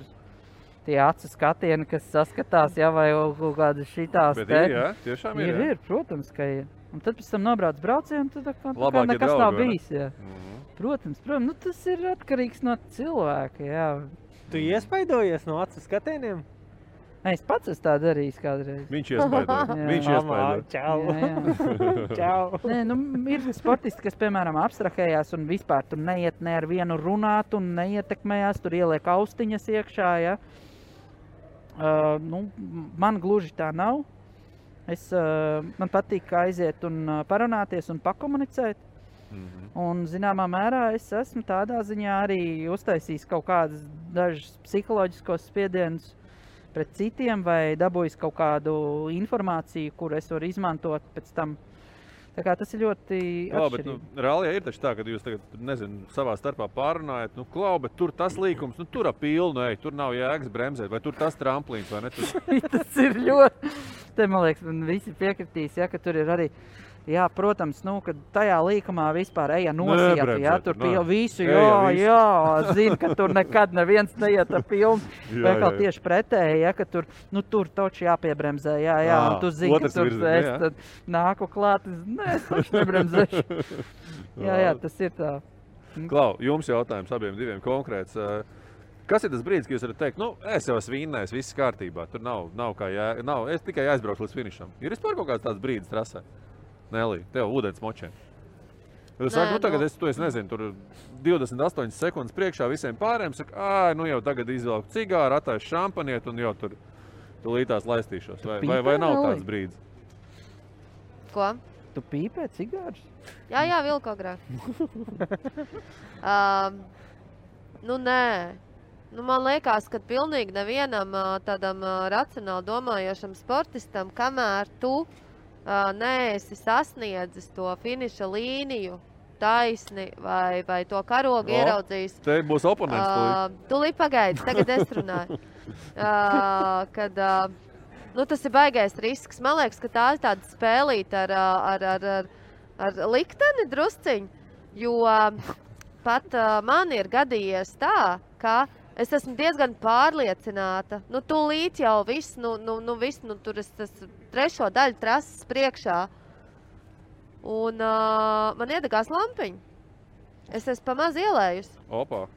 tie acu skatieni, kas saskatās, ja, vai kaut kāda šitās. Bet ir, jā, tiešām ir. Ir, protams, ka ir. Un tad pēc tam nobrauc braucienu, tad kā nekas nav bijis, jā. Protams, tas ir atkarīgs no cilvēka, jā. Tu iespaidojies no acu skatieniem? Es pats esmu tā darījis kādreiz. Viņš iespaidoja. Čau. Čau. Ir sportisti, kas, piemēram, abstrahējās un vispār tur neiet ne ar vienu runāt un neietekmējās, tur ieliek austiņas iekšā, ja. Man gluži tā nav. Man patīk aiziet un parunāties un pakomunicēt. Un, zināmā mērā, es esmu tādā ziņā arī uztaisījis kaut kādas dažas psiholoģiskos spiedienus pret citiem vai dabūjis kaut kādu informāciju, kuru es varu izmantot pēc tam. Tā kā tas ir ļoti atšķirīgi. Bet rallijā ir taču tā, ka jūs tagad, savā starpā pārunājat, bet tur tas līkums, tur pilnu, tur nav jēgas bremzēt, vai tur tas tramplīns, vai ne? Tas ir ļoti... Te, man liekas, visi piekritīs, ka tur ir arī... Jā, protams, kad tajā līkumā vispār eja nosiet, tur visu, zina, ka tur nekad neviens neiet ar pilnu. Vai kā tieši pretēji, ka tur, tur taču jāpiebremzē, un tu zini, ka tur es tad nāku klāt, es taču nebremzēšu. Jā, tas ir tā. Klau, jums jautājums abiem diviem konkrēts. Kas ir tas brīdis, kad jūs varat teikt, es jau esmu vinnējis, viss kārtībā, tur nav kā es tikai aizbraucu līdz finišam. Ir vispār kaut kāds tāds brīdis trasē? Nelī, tev ūdens močiem. Tu saki, tagad es nezinu, tur 28 sekundes priekšā visiem pārējiem, saka, jau tagad izvelku cigāru, attaisu šampaniet un jau tur lītās laistīšos. Vai nav tāds brīdis? Ko? Tu pīpē cigārus? Jā, vilku agrāk. Nē. Man liekas, ka pilnīgi nevienam tādam racionāli domājošam sportistam, kamēr tu neesi sasniedzis to finiša līniju taisni vai to karogu ieraudzījis. Te būs oponents. Tūlīt pagaidi, tagad es runāju. Kad tas ir baigais risks. Man liekas, ka tā ir tāda spēlīta ar likteni drusciņu, jo pat man ir gadījies tā, ka es esmu diezgan pārliecināta. Tūlīt jau viss, tur es trešo daļu trases priekšā. Un man iedegās lampiņa. Es esmu pamaz ielējusi. Opā.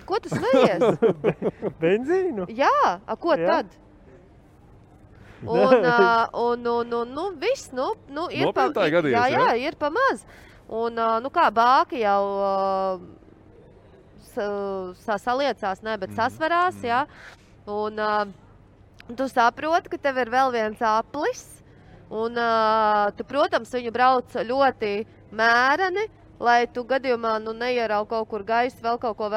Ko tu smejies? Benzīnu? Jā, ko tad? Un viss, Nopietnā gadījās, jā, ir pamaz. Un, kā bāki jau... saliecās, bet sasvarās, jā. Un tu saproti, ka tev ir vēl viens aplis. Un tu, protams, viņu brauc ļoti mēreni, lai tu gadījumā neierauj kaut kur gaisu, vēl kaut ko,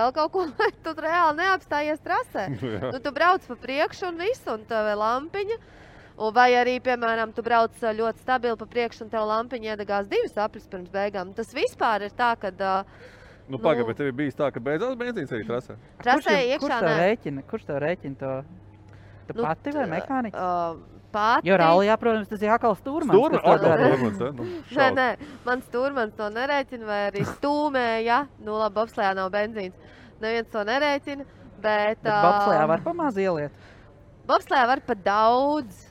lai tu reāli neapstājies trasē. Tu brauc pa priekšu un visu, un tev ir lampiņa. Vai arī, piemēram, tu brauc ļoti stabili pa priekšu, un tev lampiņa iedegās 2 aplis pirms beigām. Tas vispār ir tā, kad... Pagaid, bet tev bija tā, ka beidzās benzīns arī trasē? Trasē iekšā nē. Kurš tev rēķina to? Tu pati vai mehāniķis? Pati. Jo rallijā, protams, tas ir atkal stūrmans. Nē, man stūrmans to nerēķina, vai arī stūmēja. Labi, bobslejā nav benzīns. Neviens to nerēķina, bet bobslejā var pamaz ieliet? Bobslejā var pa daudz.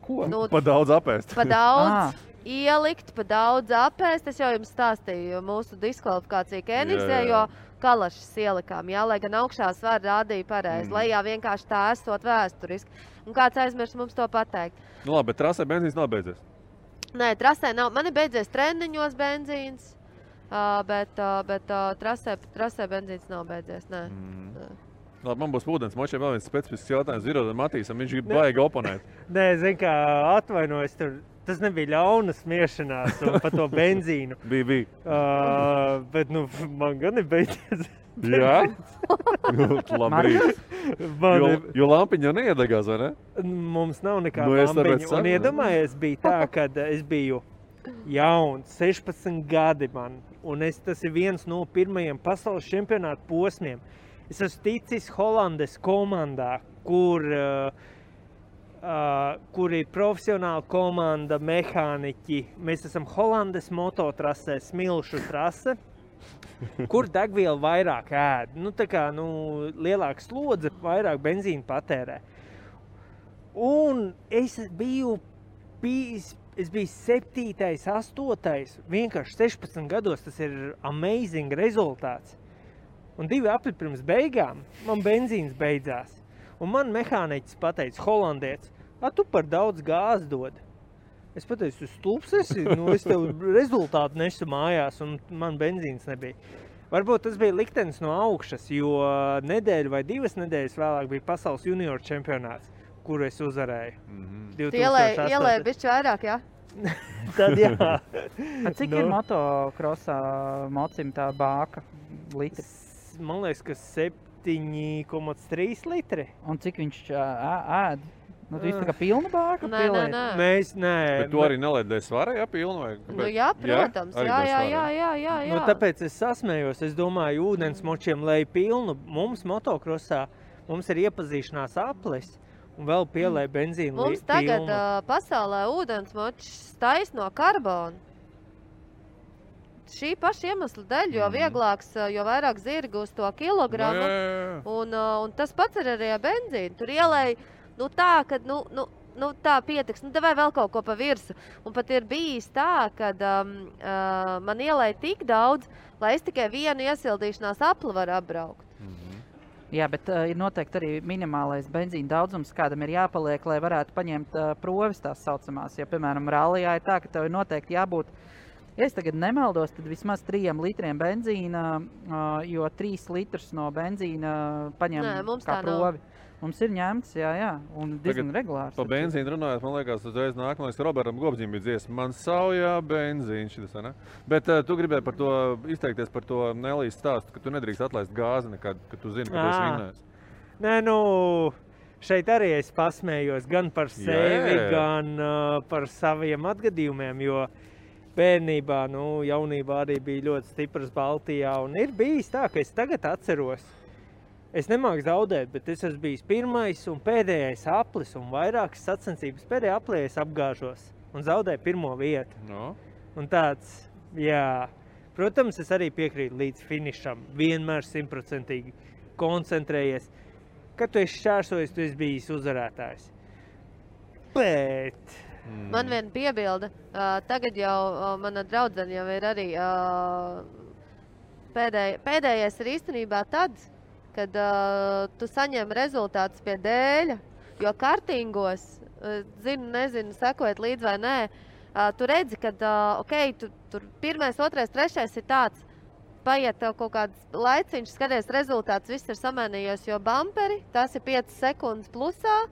Ko? Pa daudz apēst. Pa daudz. Ielikt, pa daudz apēst. Es jau jums stāstīju mūsu diskvalifikāciju Kenigzē, jo kalašas ielikām, lai gan augšā svar rādīja pareizi, lai vienkārši tā esot vēsturiski. Un kāds aizmirst mums to pateikt. Labi, bet trasē benzīns nav beidzies? Nē, trasē nav. Man ir beidzies treniņos benzīns, bet trasē benzīns nav beidzies, nē. Labi, man būs ūdens močiem vēl viens specifisks jautājums Zirodam Matīsam, viņš grib baigi oponēt. Nē, kā atvainojos tur. Tas nebija ļauna smiešanās par to benzīnu. Bija. Bet man gan ir beidzies. Jā? Labrīt. Jo lampiņa jau neiedegās, vai ne? Mums nav nekāda lampiņa. Un iedomājies, bija tā, kad es biju jauns, 16 gadi man. Un tas ir viens no pirmajiem pasaules čempionāta posmiem. Es esmu ticis Holandes komandā, kur ir profesionāla komanda, mehāniķi. Mēs esam Holandes mototrasē, smilšu trase, kur degviela vairāk ēd. Lielāka slodze, vairāk benzīna patērē. Un es biju 7., 8. Vienkārši 16 gados tas ir amazing rezultāts. Un 2 apli pirms beigām man benzīns beidzās. Un man mehāniķis pateica, holandietis, tu par daudz gāzi dod. Es pateicu, stulbs esi, es tev rezultātu nesu mājās, un man benzīns nebija. Varbūt tas bija liktenis no augšas, jo nedēļu vai 2 nedēļas vēlāk bija pasaules junioru čempionāts, kuru es uzvarēju. Tu ielēji bišķi vairāk, jā? Tad jā. Cik ir motokrosā mocim tā bāka litri? Man liekas, ka 7,3 litri. Un cik viņš ēd? Nu, tu tā kā pilna bāka pieliet? Mēs, nē. Bet tu arī neliedēji svarā, jā, pilnu vai? Nu jā, protams, jā. Nu, tāpēc es sasmējos, es domāju, ūdensmočiem, lai pilnu mums motokrosā, mums ir iepazīšanās aplis un vēl pielēja benzīnu mums tagad pasaulē ūdensmočs tais no karbona. Šī paša iemesla dēļ, jo vieglāks, jo vairāk zirgi uz to kilogramu. Un tas pats ir arī ar benzīnu. Tur ielēja tā, ka tā pietiks, vai vēl kaut ko pa virsu. Un pat ir bijis tā, kad man ielēja tik daudz, lai es tikai vienu iesildīšanās apli varu apbraukt. Jā, bet ir noteikti arī minimālais benzīna daudzums, kādam ir jāpaliek, lai varētu paņemt provis tās saucamās. Ja, piemēram, rallijā ir tā, ka tev ir noteikti jābūt, ja es tagad nemaldos, tad vismaz 3 litriem benzīna, jo 3 litrus no benzīna paņem kā provi. Mums ir ņemts, jā, un diezgan regulārs. Pa benzīnu runājot, man liekas, uzreiz nākamais, ka Robertam Gobzim bija dziesma. Man saujā benzīns šitas, ne? Bet tu gribēji par to izteikties par to Nelijas stāstu, ka tu nedrīkst atlaist gāzi nekad, ka tu zini, ka tu esi vinnējis. Nē, šeit arī es pasmējos gan par sevi, gan par saviem atgadījumiem, jo bērnībā, jaunībā arī bija ļoti stiprs Baltijā, un ir bijis tā, ka es tagad atceros. Es nemāku zaudēt, bet es esmu bijis pirmais un pēdējais aplis un vairākas sacensības. Pēdējā aplī es apgāžos un zaudēju 1. vietu. No. Un tāds, jā, protams, es arī piekrītu līdz finišam. Vienmēr 100% koncentrējies. Kad tu esi šķērsojis, tu esi bijis uzvarētājs. Bet... Man viena piebilde. Tagad jau mana draudzene jau ir arī pēdējais ir īstenībā tad, kad tu saņem rezultātus pie dēļa, jo kartingos, nezinu, sekojot līdz vai nē, tu redzi, ka, tur 1., 2., 3. ir tāds, paiet tev kaut kāds laiciņš, skaties rezultāts, viss ir samainījies, jo bumperi, tās ir 5 sekundes plusā,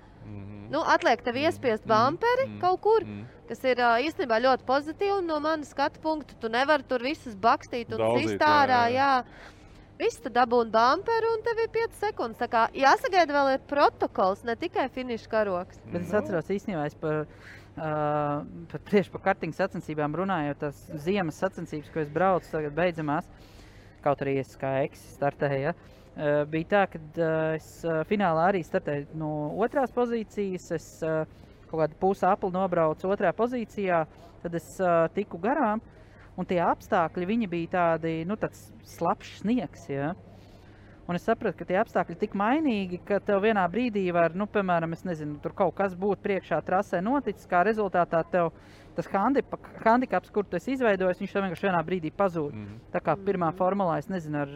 atliek tev iespiest bumperi kaut kur, kas ir īstenībā ļoti pozitīvi, no manas skatu punktu, tu nevari tur visus bakstīt un sist ārā, jā. Viss tu dabūni bumperu un tev ir 5 sekundes. Tā kā jāsagaida vēl ir protokols, ne tikai finiša karoks. Bet es atceros īstenībā, tieši par kartingu sacensībām runājot, tās ziemas sacensības, ko es braucu tagad beidzamās, kaut arī es kā eksis startēju, bija tā, kad es finālā arī startēju no 2. pozīcijas, es kaut kādu pusi apli nobraucu 2. pozīcijā, tad es tiku garām. Un tie apstākļi, viņi bija tādi, tāds slapšs sniegs, ja? Un es sapratu, ka tie apstākļi tik mainīgi, ka tev vienā brīdī var, piemēram, es nezinu, tur kaut kas būtu priekšā trasē noticis, kā rezultātā tev tas handikaps, kur tu esi izveidojis, viņš tev vienkārši vienā brīdī pazūd. Tā kā pirmā formulā, es nezinu, ar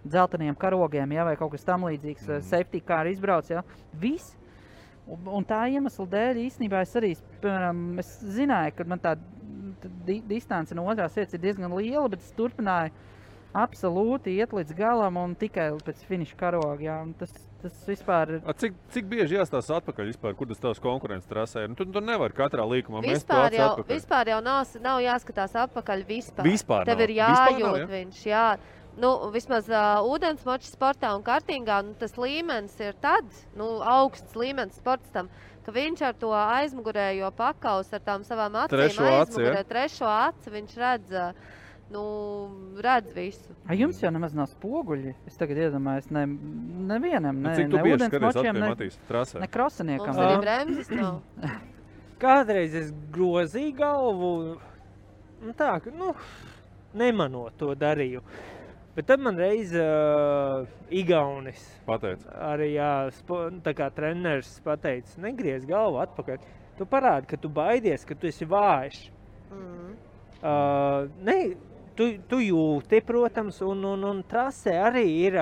dzelteniem karogiem, ja, vai kaut kas tam līdzīgs, safety car izbrauc, ja? Viss. Un tā iemesla dēļ īstenībā es arī, piemēram, es zināju, ka man tā distance no otrās vietas ir diezgan liela, bet es turpināju absolūti iet līdz galam un tikai pēc finiša karoga. Jā, tas vispār ir... Cik bieži jāstās atpakaļ vispār, kur tas tavs konkurences trasē ir? Tu nevar katrā līkumā mest to atpakaļ. Vispār jau nav jāskatās atpakaļ vispār. Vispār Tev ir jājūt viņš, jā. Vismaz ūdensmoča sportā un kartingā, tas līmenis ir tāds, augsts līmenis sportstam, ka viņš ar to aizmugurējo pakaus, ar tām savām acīm aizmugurē, trešo aci, viņš redz visu. Jums jau nemaz nav spoguļi? Es tagad iedomājos, nevienam, ne ūdensmočiem, ne krosaniekam. Mums arī bremzes nav. Kādreiz es grozīju galvu, tā, ka, nemanot to darīju. Bet tad man reiz Igaunis pateica. Arī tā kā treneris pateica, negriez galvu atpakaļ. Tu parādi, ka tu baidies, ka tu esi vājš. Tu jūti, protams, un trasē arī ir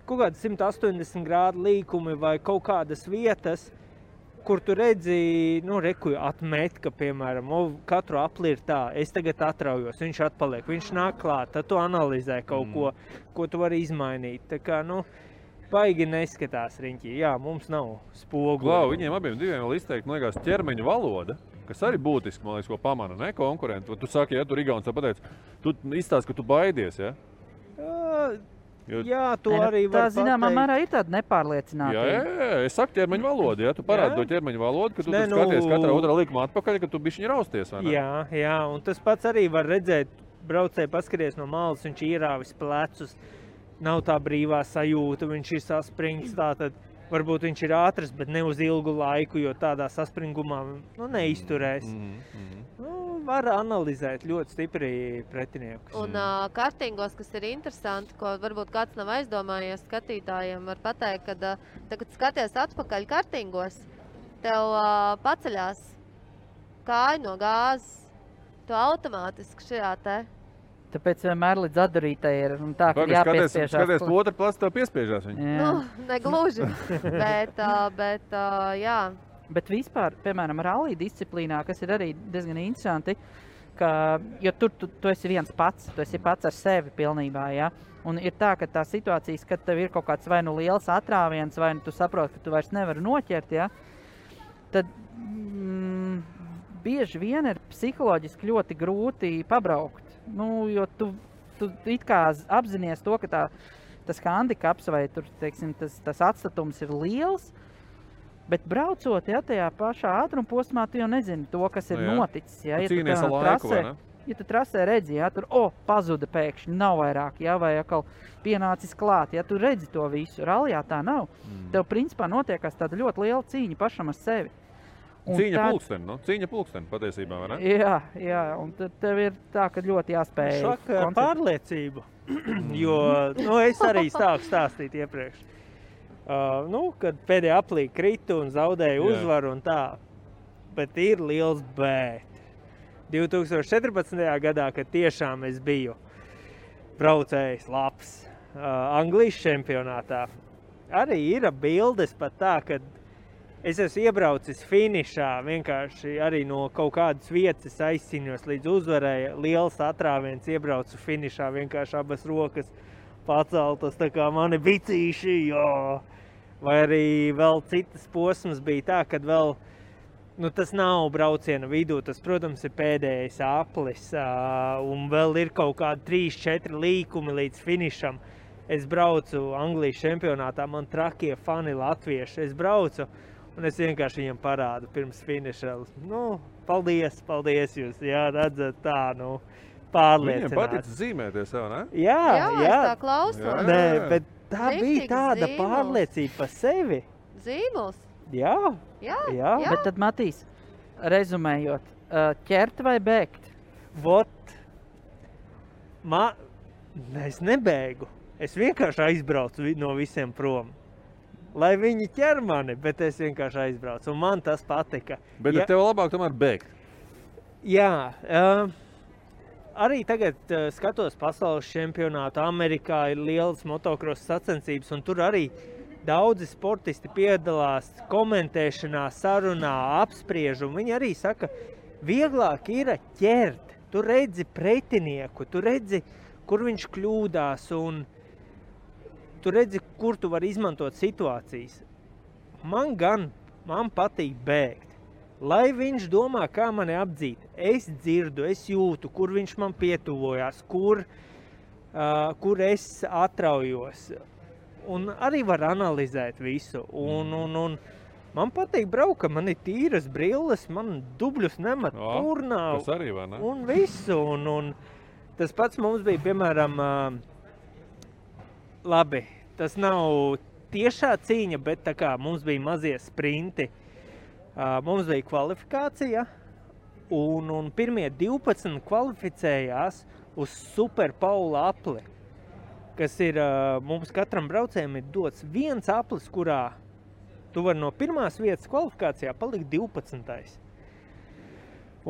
kaut kādi 180 grādu līkumi vai kaut kādas vietas, kur tu redzi, reku atmet, ka, piemēram, katru apli ir tā, es tagad atraujos, viņš atpaliek, viņš nāk klāt, tad tu analizē kaut ko tu vari izmainīt. Tā kā, baigi neskatās riņķī. Jā, mums nav spogu. Klau, viņiem abiem diviem vēl izteikt, man liekas, ķermeņa valoda, kas arī būtiski, man liekas, ko pamana, ne, konkurenti. Tu saki, ja tu Igauns pateic, tu izstāst, ka tu baidies, ja? Jā, tu arī var pateikt. Tā zināmā mērā ir tāda nepārliecinātība. Jā, es saku ķermeņa valodu, ja? Tu parādi to ķermeņa valodu, ka tu skaties katrā otrā likuma atpakaļ, ka tu bišķiņi rausties, vai ne? Jā, un tas pats arī var redzēt, braucēji paskaties no malas, viņš ierāvis plecus, nav tā brīvā sajūta, viņš ir saspringts, tātad varbūt viņš ir ātrs, bet ne uz ilgu laiku, jo tādā saspringumā neizturēs. Var analizēt ļoti stipri pretiniekus. Un kartingos, kas ir interesanti, ko varbūt kāds nav aizdomājies skatītājiem, var pateikt, ka tagad skaties atpakaļ kartingos, tev paceļās kāja no gāzes, tu automātiski šajā te. Tāpēc vienmēr līdz atdarītai ir tā, ka jāpiespiežās. Skaties, otra plats tev piespiežās viņu. Negluži, bet jā. Bet vispār, piemēram, rallija disciplīnā, kas ir arī diezgan interesanti, jo tur tu esi viens pats, tu esi pats ar sevi pilnībā, ja? Un ir tā, ka tā situācijas, kad tev ir kaut kāds vai liels atrāviens, vai tu saproti, ka tu vairs nevari noķert, ja? Tad bieži vien ir psiholoģiski ļoti grūti pabraukt. Jo tu it kā apzinies to, ka tas handikaps vai tur, teiksim, tas atstatums ir liels, bet braucot, ja, tajā pašā ātruma posmā, tu jau nezini to, kas ir noticis. Ja, tu cīnies ar laiku, vai ne? Ja tu trasē redzi, ja, tur, pazuda pēkšņi, nav vairāk, ja, vai atkal pienācis klāt, ja tu redzi to visu. Rallijā tā nav. Tev principā notiekās tāda ļoti liela cīņa pašam ar sevi. Cīņa pulksteni patiesībā, vai ne? Jā, un tad tev ir tā, ka ļoti jāspēj šaka pārliecību, jo, es arī stāku stāstīt iepriekš. Kad pēdējā aplī kritu un zaudēju uzvaru un tā, bet ir liels bet. 2014. gadā, kad tiešām es biju braucējs labs Anglijas čempionātā, arī ir bildes pat tā, kad es esmu iebraucis finišā, vienkārši arī no kaut kādas vietas aizcīnījos līdz uzvarēja. Liels atrāviens, iebraucu finišā, vienkārši abas rokas paceltas, tā kā mani bicīši, jā. Vai arī vēl citas posmas bija tā, kad vēl, tas nav brauciena vidū, tas, protams, ir pēdējais aplis, un vēl ir kaut kādi 3-4 līkumi līdz finišam. Es braucu Anglijas čempionātā, man trakie fani latvieši, es braucu, un es vienkārši viņam parādu pirms finiša. Paldies jūs, jā, redzat tā, pārliecināts. Viņiem patic zīmēties jau, ne? Jā, es tā klausos. Nē, bet tā bija tāda pārliecība par sevi. Zīmols? Jā. Bet tad, Matīs, rezumējot, ķert vai bēgt? Es nebēgu. Es vienkārši aizbraucu no visiem prom. Lai viņi ķer mani, bet es vienkārši aizbraucu, un man tas patika. Bet tev labāk tomēr bēgt? Jā, arī tagad skatos pasaules čempionātu, Amerikā ir lielas motocross sacensības, un tur arī daudzi sportisti piedalās komentēšanā, sarunā, apspriež, un viņi arī saka, vieglāk ir ķert, tu redzi pretinieku, tu redzi, kur viņš kļūdās, un tu redzi, kur tu vari izmantot situācijas. Man patīk bēgt. Lai viņš domā, kā mani apdzīt. Es dzirdu, es jūtu, kur viņš man pietuvojās, kur es atraujos. Un arī var analizēt visu. Un man patīk braukt, man ir tīras brilles, man dubļus nemet turnā. Tas arī, vai ne? Un visu. Un tas pats mums bija, piemēram, labi, tas nav tiešā cīņa, bet tā kā mums bija mazie sprinti, mums bija kvalifikācija, un pirmie 12 kvalificējās uz Super Paula apli, kas ir, mums katram braucējiem ir dots viens aplis, kurā tu vari no pirmās vietas kvalifikācijā palikt 12.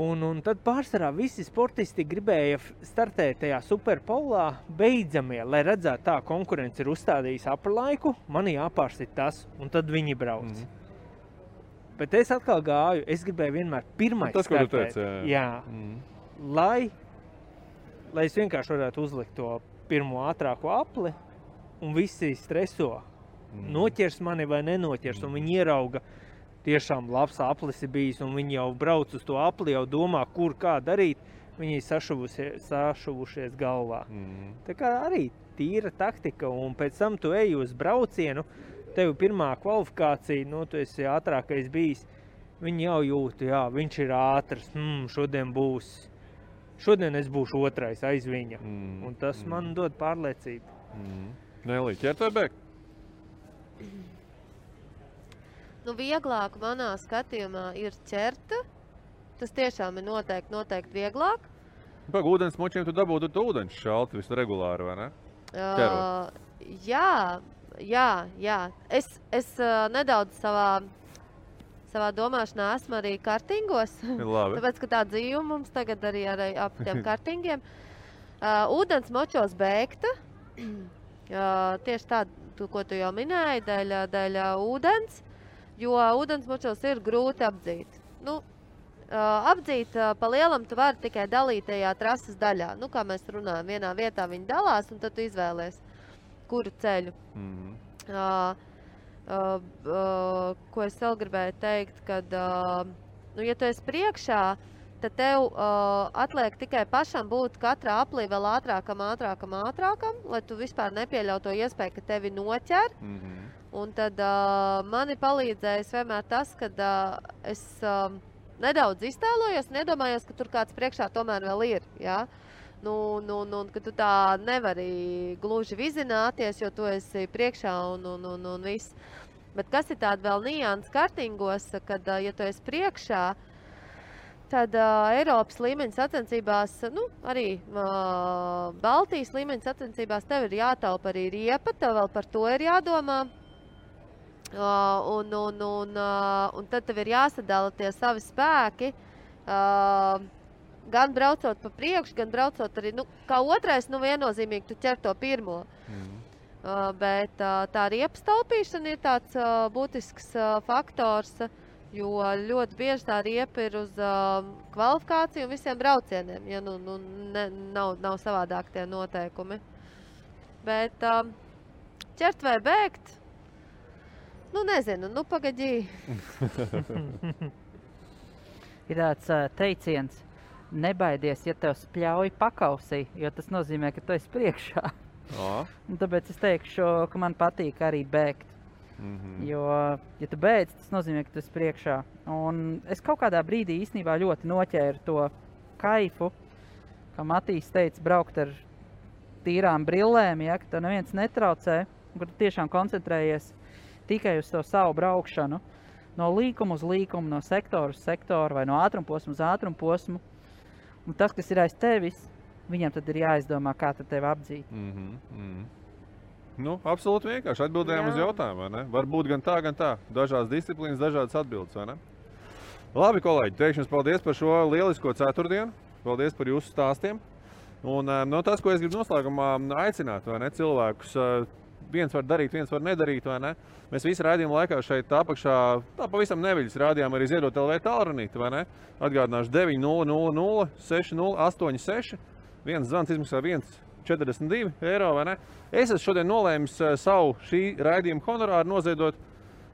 Un tad pārsvarā visi sportisti gribēja startēt tajā Superpolā beidzamie, lai redzētu tā, konkurence ir uzstādījis apri laiku, man jāpārsit tas, un tad viņi brauc. Bet es atkal gāju, es gribēju vienmēr pirmais Tas, ko tu startēt. teici, Jā. Lai es vienkārši varētu uzlikt to pirmo ātrāko apli, un visi streso. Noķers mani vai nenoķers, un viņi ierauga, tiešām labs aplis ir bijis, un viņi jau brauc uz to apli, jau domā, kur kā darīt, viņi sašuvušies galvā. Tā kā arī tīra taktika, un pēc tam tu eji uz braucienu, tev pirmā kvalifikācija, tu esi ātrākais bijis, viņi jau jūt, jā, viņš ir ātrs, šodien es būšu otrais aiz viņa, un tas man dod pārliecību. Nelī, ķert vai bēgt? Vieglāk manā skatījumā ir ķerta. Tas tiešām ir noteikti vieglāk. Pag, ūdens močiem tu dabūtu ūdens šalti visu regulāri, vai ne? Ķerot. Jā. Es nedaudz savā domāšanā esmu arī kartingos. Labi. Tāpēc, ka tā dzīve mums tagad arī ap tiem kartingiem. Ūdens močos bēgta. Tieši tādu, ko tu jau minēji, dēļ ūdens. Jo ūdens močos ir grūti apdzīt. Apdzīt pa lielam tu vari tikai dalītajā trases daļā. Kā mēs runājam, vienā vietā viņi dalās, un tad tu izvēlies, kuru ceļu. Ko es vēl gribēju teikt, kad, ja tu esi priekšā, tad tev atliek tikai pašam būt katrā aplī vēl ātrākam, lai tu vispār nepieļautu to iespēju, ka tevi noķer. Un tad mani palīdzējis vienmēr tas, kad es nedaudz iztēlojos un iedomājos, ka tur kāds priekšā tomēr vēl ir. Ja? Ka tu tā nevari gluži vizināties, jo tu esi priekšā un viss. Bet kas ir tāda vēl nianses kartingos, kad, ja tu esi priekšā, tad Eiropas līmeņa sacensībās, arī Baltijas līmeņa sacensībās tev ir jātaupa arī riepa, tev vēl par to ir jādomā. Un tad tev ir jāsadala tie savi spēki, gan braucot pa priekšu, gan braucot arī, kā otrais, viennozīmīgi tu ķer to pirmo. Bet tā riepas taupīšana ir tāds būtisks faktors, jo ļoti bieži tā riepa ir uz kvalifikāciju un visiem braucieniem, ja nav savādāk tie noteikumi. Bet ķert vai bēgt? Nezinu, pagaidī. Ir tāds teiciens, nebaidies, ja tev spļauj pakausī, jo tas nozīmē, ka tu esi priekšā. Un tāpēc es teikšu, ka man patīk arī bēgt. Jo, ja tu beidz, tas nozīmē, ka tu esi priekšā. Un es kaut kādā brīdī īstenībā ļoti noķēru to kaifu, kā Matīs teica, braukt ar tīrām brillēm, ja, ka tev neviens netraucē, kur tu tiešām koncentrējies tikai uz to savu braukšanu, no līkuma uz līkumu, no sektora uz sektoru vai no ātrumposmu uz ātrumposmu. Un tas, kas ir aiz tevis, viņam tad ir jāizdomā, kā tad tevi apdzīt. Absolūti vienkārši atbildējām uz jautājumu, vai ne? Varbūt gan tā. Dažādas disciplīnas, dažādas atbildes, vai ne? Labi, kolēģi, teikšu jums paldies par šo lielisko ceturtdienu. Paldies par jūsu stāstiem. Un tas, ko es gribu noslēgumā aicināt, vai ne, cilvēkus, viens var darīt, viens var nedarīt, vai ne? Mēs visi raidījuma laikā šeit apakšā, pavisam neviļas rādījām arī Ziedot LV tālrunīti, vai ne? Atgādināšu 900 6086. Viens zvans izmaksā 1,42 eiro, vai ne? Es esmu šodien nolēmis savu šī raidījuma honorāru noziedot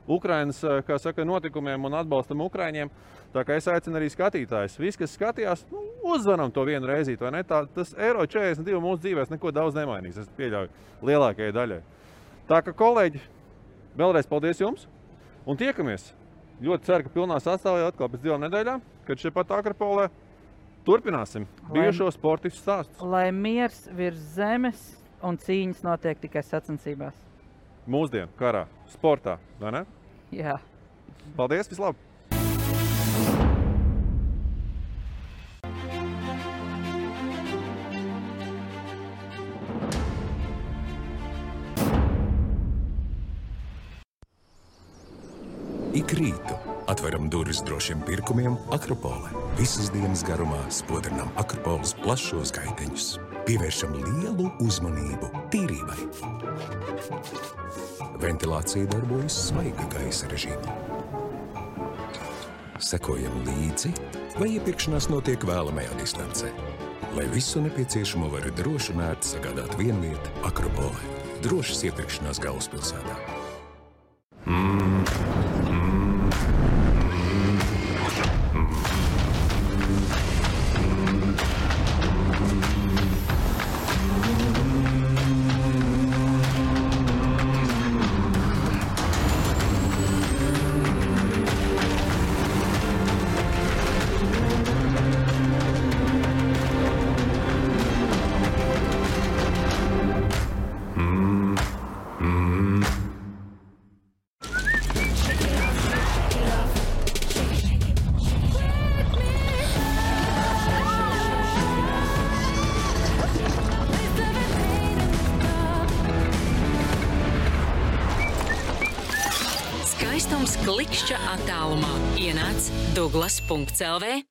Ukrainas, kā saka, notikumiem un atbalstam Ukraiņiem. Tā kā es aicinu arī skatītājus. Visi, kas skatījās, uzzvanam to vienu reizīt, vai ne? Tas eiro 42 mūsu dzīvēs neko daudz nemainīs, es pieļauju lielākajai daļai. Tā kā, kolēģi, vēlreiz paldies jums un tiekamies. Ļoti ceru, ka pilnā sastāvā atkal pēc 2 nedēļām, kad šeit pat Akropolē turpināsim bijušo sportistu stāstus. Lai miers virs zemes un cīņas notiek tikai sacensībās. Mūsdienu karā, sportā, vai ne? Jā. Paldies, vislabāk! Ik rītu atveram durvis drošiem pirkumiem Akropolē. Visas dienas garumā spodrinām Akropoles plašos gaiteņus. Pievēršam lielu uzmanību tīrībai. Ventilācija darbojas svaiga gaisa režīmā. sekojam līdzi, vai iepirkšanās notiek vēlamajā distancē. Lai visu nepieciešamo var droši un ērti sagādāt vienvieta Akropole. Drošas iepirkšanās galvaspilsētā. Skaistums klikšķa attālumā. Ienāc Douglas.lv